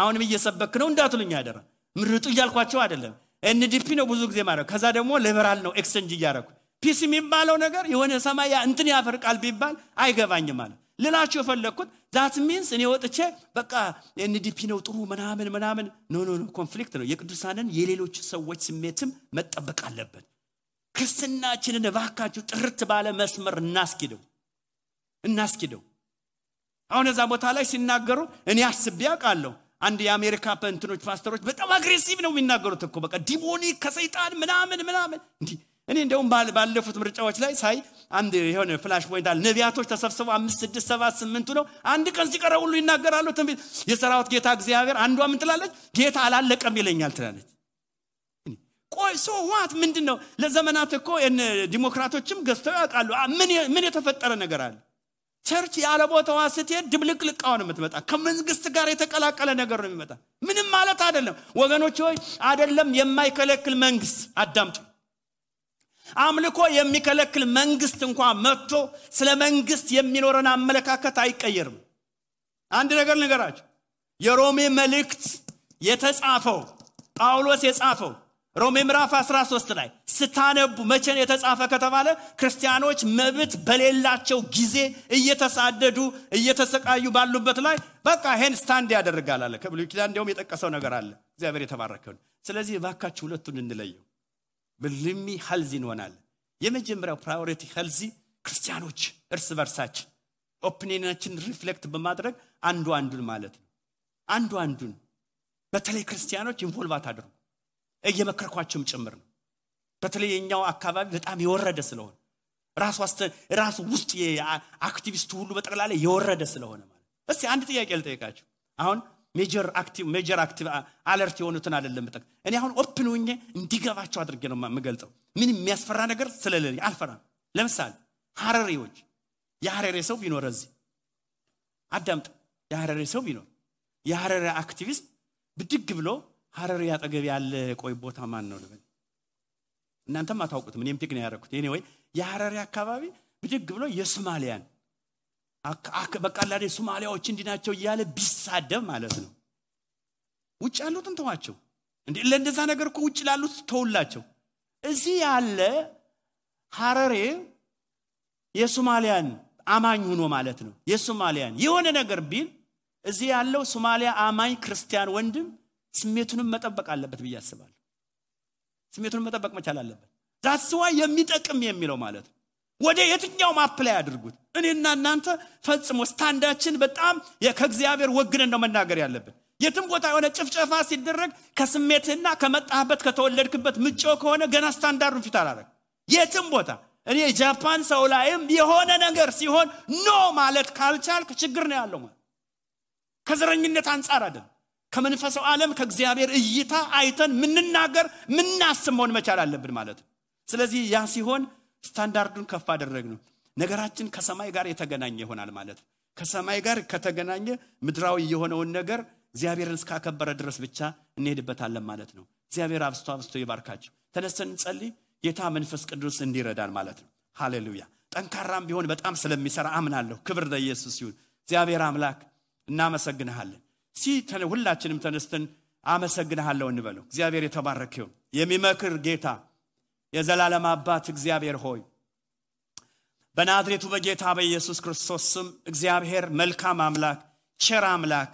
አሁንም እየሰበክ ነው እንዳትሉኝ አይደለም ምርጡ ይያልኳቸው አይደለም ኤንዲፒ ነው ብዙ ጊዜ ማለት ከዛ ደግሞ ሊበራል ነው ኤክስቼንጅ ይያረኩ ፒሲ የሚባለው ነገር የሆነ ሰማያ እንትን ያፈርቃል ቢባል አይገባኝም ማለት ልላችሁ የፈለኩት that means እኔ ወጥቼ በቃ ኤንዲፒ ነው ጥሩ ምናምን ኖ ኮንፍሊክት ነው የቅዱሳንን የሌሎች ሰዎች ስሜትም መጠበቅ አለበት ክርስትናችንን ባካችሁ ጥርት ባለ መስመር እናስኪደው አሁን እዛ ቦታ ላይ ሲናገሩ እኔ አስቤ ያውቃለሁ አንድ የአሜሪካ ፓስተሮች በጣም አግሬሲቭ ነው የሚናገሩት እኮ በቃ ዲሞኒክ ከሰይጣን ምናምን እንዴ እኔ እንደውም ባለፉት ምርጫዎች ላይ ሳይ አንድ የሆነ ፍላሽ ፖይንት አለ ነቢያቶች ተሰብስበው 5 6 7 8 ነው አንድ ቀን ሲቀረው ሁሉ ይናገራሉ ትንቢት የሰራዊት ጌታ እግዚአብሔር አንዷ ምን ትላለች ጌታ አላለቀም ይለኛል ትላለች ቆይ ዋት ምንድነው ለዘመናት እኮ ዲሞክራቶችም ገዝተው ያውቃሉ ምን የተፈጠረ ነገር አለ ቸርች ያለ ቦታዋ ስትሄድ ድብልቅልቃው ነው የምትመጣ ከመንግስት ጋር የተቀላቀለ ነገር ነው የሚመጣ ምንም ማለት አይደለም ወገኖች ሆይ አይደለም የማይከለክል መንግስት አዳምጡ አምልኮ የሚከለክል መንግስት እንኳን መጥቶ ስለ መንግስት የሚኖረን አመለካከት አይቀየርም አንድ ነገር ንገራችሁ የሮሜ መልእክት የተጻፈው ጳውሎስ የጻፈው ሮሜ ምዕራፍ 13 ላይ ስታነቡ መቼን የተጻፈ ከተባለ ክርስቲያኖች መብት በሌላቸው ጊዜ እየተሳደዱ እየተሰቃዩ ባሉበት ላይ በቃ ሄን ስታንድ ያደርጋል አለ ከብሉይ ኪዳን እንደውም የጠቀሰው ነገር አለ እግዚአብሔር የተባረከው ስለዚህ ባካችሁ ሁለቱን እንለየው በልሚ ሄልዚ እንሆናል የመጀመሪያው ፕራዮሪቲ ሄልዚ ክርስቲያኖች እርስ በርሳችን ኦፒኒየናችን ሪፍሌክት በማድረግ አንዱን ማለት ነው አንዱን በተለይ ክርስቲያኖች ኢንቮልቭ አድርጉ እየመከርኳቸውም ጭምር ነው በተለይ የኛው አካባቢ በጣም የወረደ ስለሆነ ራሱ ውስጥ የአክቲቪስቱ ሁሉ በጠቅላላ የወረደ ስለሆነ ማለት እስቲ አንድ ጥያቄ ልጠይቃችሁ አሁን ሜጀር አክቲቭ አለርት የሆኑትን አይደለም መጠቅ እኔ አሁን ኦፕን ሆኜ እንዲገባቸው አድርጌ ነው የምገልጸው ምን የሚያስፈራ ነገር ስለሌለ አልፈራም ለምሳሌ ሐረሪዎች የሐረሪ ሰው ቢኖር እዚህ አዳምጥ የሐረሪ ሰው ቢኖር የሐረሪ አክቲቪስት ብድግ ብሎ ሐረሪ ያጠገብ ያለ ቆይ ቦታ ማን ነው ልበል እናንተም አታውቁትም እኔም ፒክ ነው ያደረኩት ኤኒዌይ የሐረሪ አካባቢ ብድግ ብሎ የሶማሊያን በቃላዴ ሶማሊያዎች እንዲናቸው ይያለ ቢሳደብ ማለት ነው ውጭ ያሉትን ተዋቸው እንዴ ለእንደዛ ነገር እኮ ውጭ ላሉት ተውላቸው እዚህ ያለ ሐረሪ የሶማሊያን አማኝ ሆኖ ማለት ነው የሶማሊያን የሆነ ነገር ቢል እዚህ ያለው ሶማሊያ አማኝ ክርስቲያን ወንድም ስሜቱንም መጠበቅ አለበት ብዬ አስባለሁ ስሜቱንም መጠበቅ መቻል አለበት that's why የሚጠቅም የሚለው ማለት ነው ወደ የትኛው አፕላይ አድርጉት እኔና እናንተ ፈጽሞ ስታንዳችን በጣም ከእግዚአብሔር ወግነን ነው መናገር ያለብን የትም ቦታ የሆነ ጭፍጨፋ ሲደረግ ከስሜትና ከመጣህበት ከተወለድክበት ምጮ ከሆነ ገና ስታንዳርዱን ፊት አላረግ የትም ቦታ እኔ ጃፓን ሰው ላይም የሆነ ነገር ሲሆን ኖ ማለት ካልቻልክ ችግር ነው ያለው ማለት ከዘረኝነት አንፃር አይደል ከመንፈሳዊ ዓለም ከእግዚአብሔር እይታ አይተን ምንናገር ምናስመውን መቻል አለብን ማለት ነው ስለዚህ ያ ሲሆን ስታንዳርዱን ከፍ አደረግነው ነገራችን ከሰማይ ጋር የተገናኘ ይሆናል ማለት ከሰማይ ጋር ከተገናኘ ምድራዊ የሆነውን ነገር እግዚአብሔርን እስካከበረ ድረስ ብቻ እንሄድበታለን ማለት ነው እግዚአብሔር አብስቶ ይባርካችሁ ተነስተን እንጸልይ ጌታ መንፈስ ቅዱስ እንዲረዳን ማለት ነው ሃሌሉያ ጠንካራም ቢሆን በጣም ስለሚሰራ አምናለሁ ክብር ለኢየሱስ ይሁን እግዚአብሔር አምላክ እናመሰግንሃለን ሁላችንም ተነስተን አመሰግንሃለሁ እንበለው እግዚአብሔር የተባረከ ይሁን የሚመክር ጌታ የዘላለም አባት እግዚአብሔር ሆይ በናዝሬቱ በጌታ በኢየሱስ ክርስቶስ ስም እግዚአብሔር መልካም አምላክ ቸር አምላክ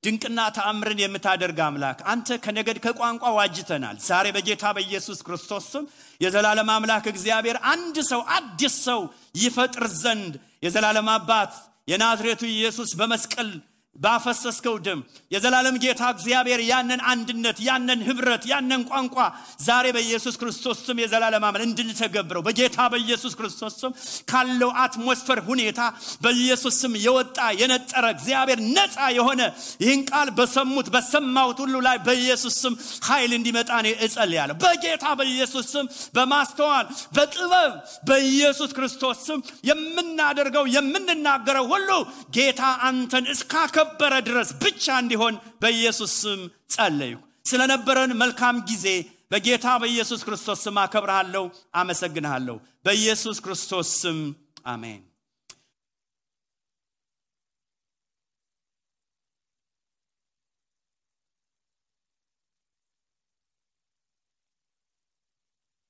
ድንቅና ተአምርን የምታደርግ አምላክ አንተ ከነገድ ከቋንቋ ዋጅተናል ዛሬ በጌታ በኢየሱስ ክርስቶስ ስም የዘላለም አምላክ እግዚአብሔር አንድ ሰው አዲስ ሰው ይፈጥር ዘንድ የዘላለም አባት የናዝሬቱ ኢየሱስ በመስቀል ባፈሰስከው ደም የዘላለም ጌታ እግዚአብሔር ያንን አንድነት ያንን ህብረት ያንን ቋንቋ ዛሬ በኢየሱስ ክርስቶስ ስም የዘላለም አምላክ እንድንተገብረው በጌታ በኢየሱስ ክርስቶስ ስም ካለው አትሞስፌር ሁኔታ በኢየሱስ ስም የወጣ የነጠረ እግዚአብሔር ነፃ የሆነ ይህን ቃል በሰማሁት ሁሉ ላይ በኢየሱስ ስም ኃይል እንዲመጣ ነው እጸልያለሁ በጌታ በኢየሱስ ስም በማስተዋል በጥበብ በኢየሱስ ክርስቶስ ስም የምናደርገው የምንናገረው ሁሉ ጌታ አንተን እስካከበረ ድረስ ብቻ እንዲሆን በኢየሱስ ስም ጸልዩ ስለነበረን መልካም ጊዜ በጌታ በኢየሱስ ክርስቶስ ስም አከብርሃለሁ አመሰግንሃለሁ በኢየሱስ ክርስቶስ ስም አሜን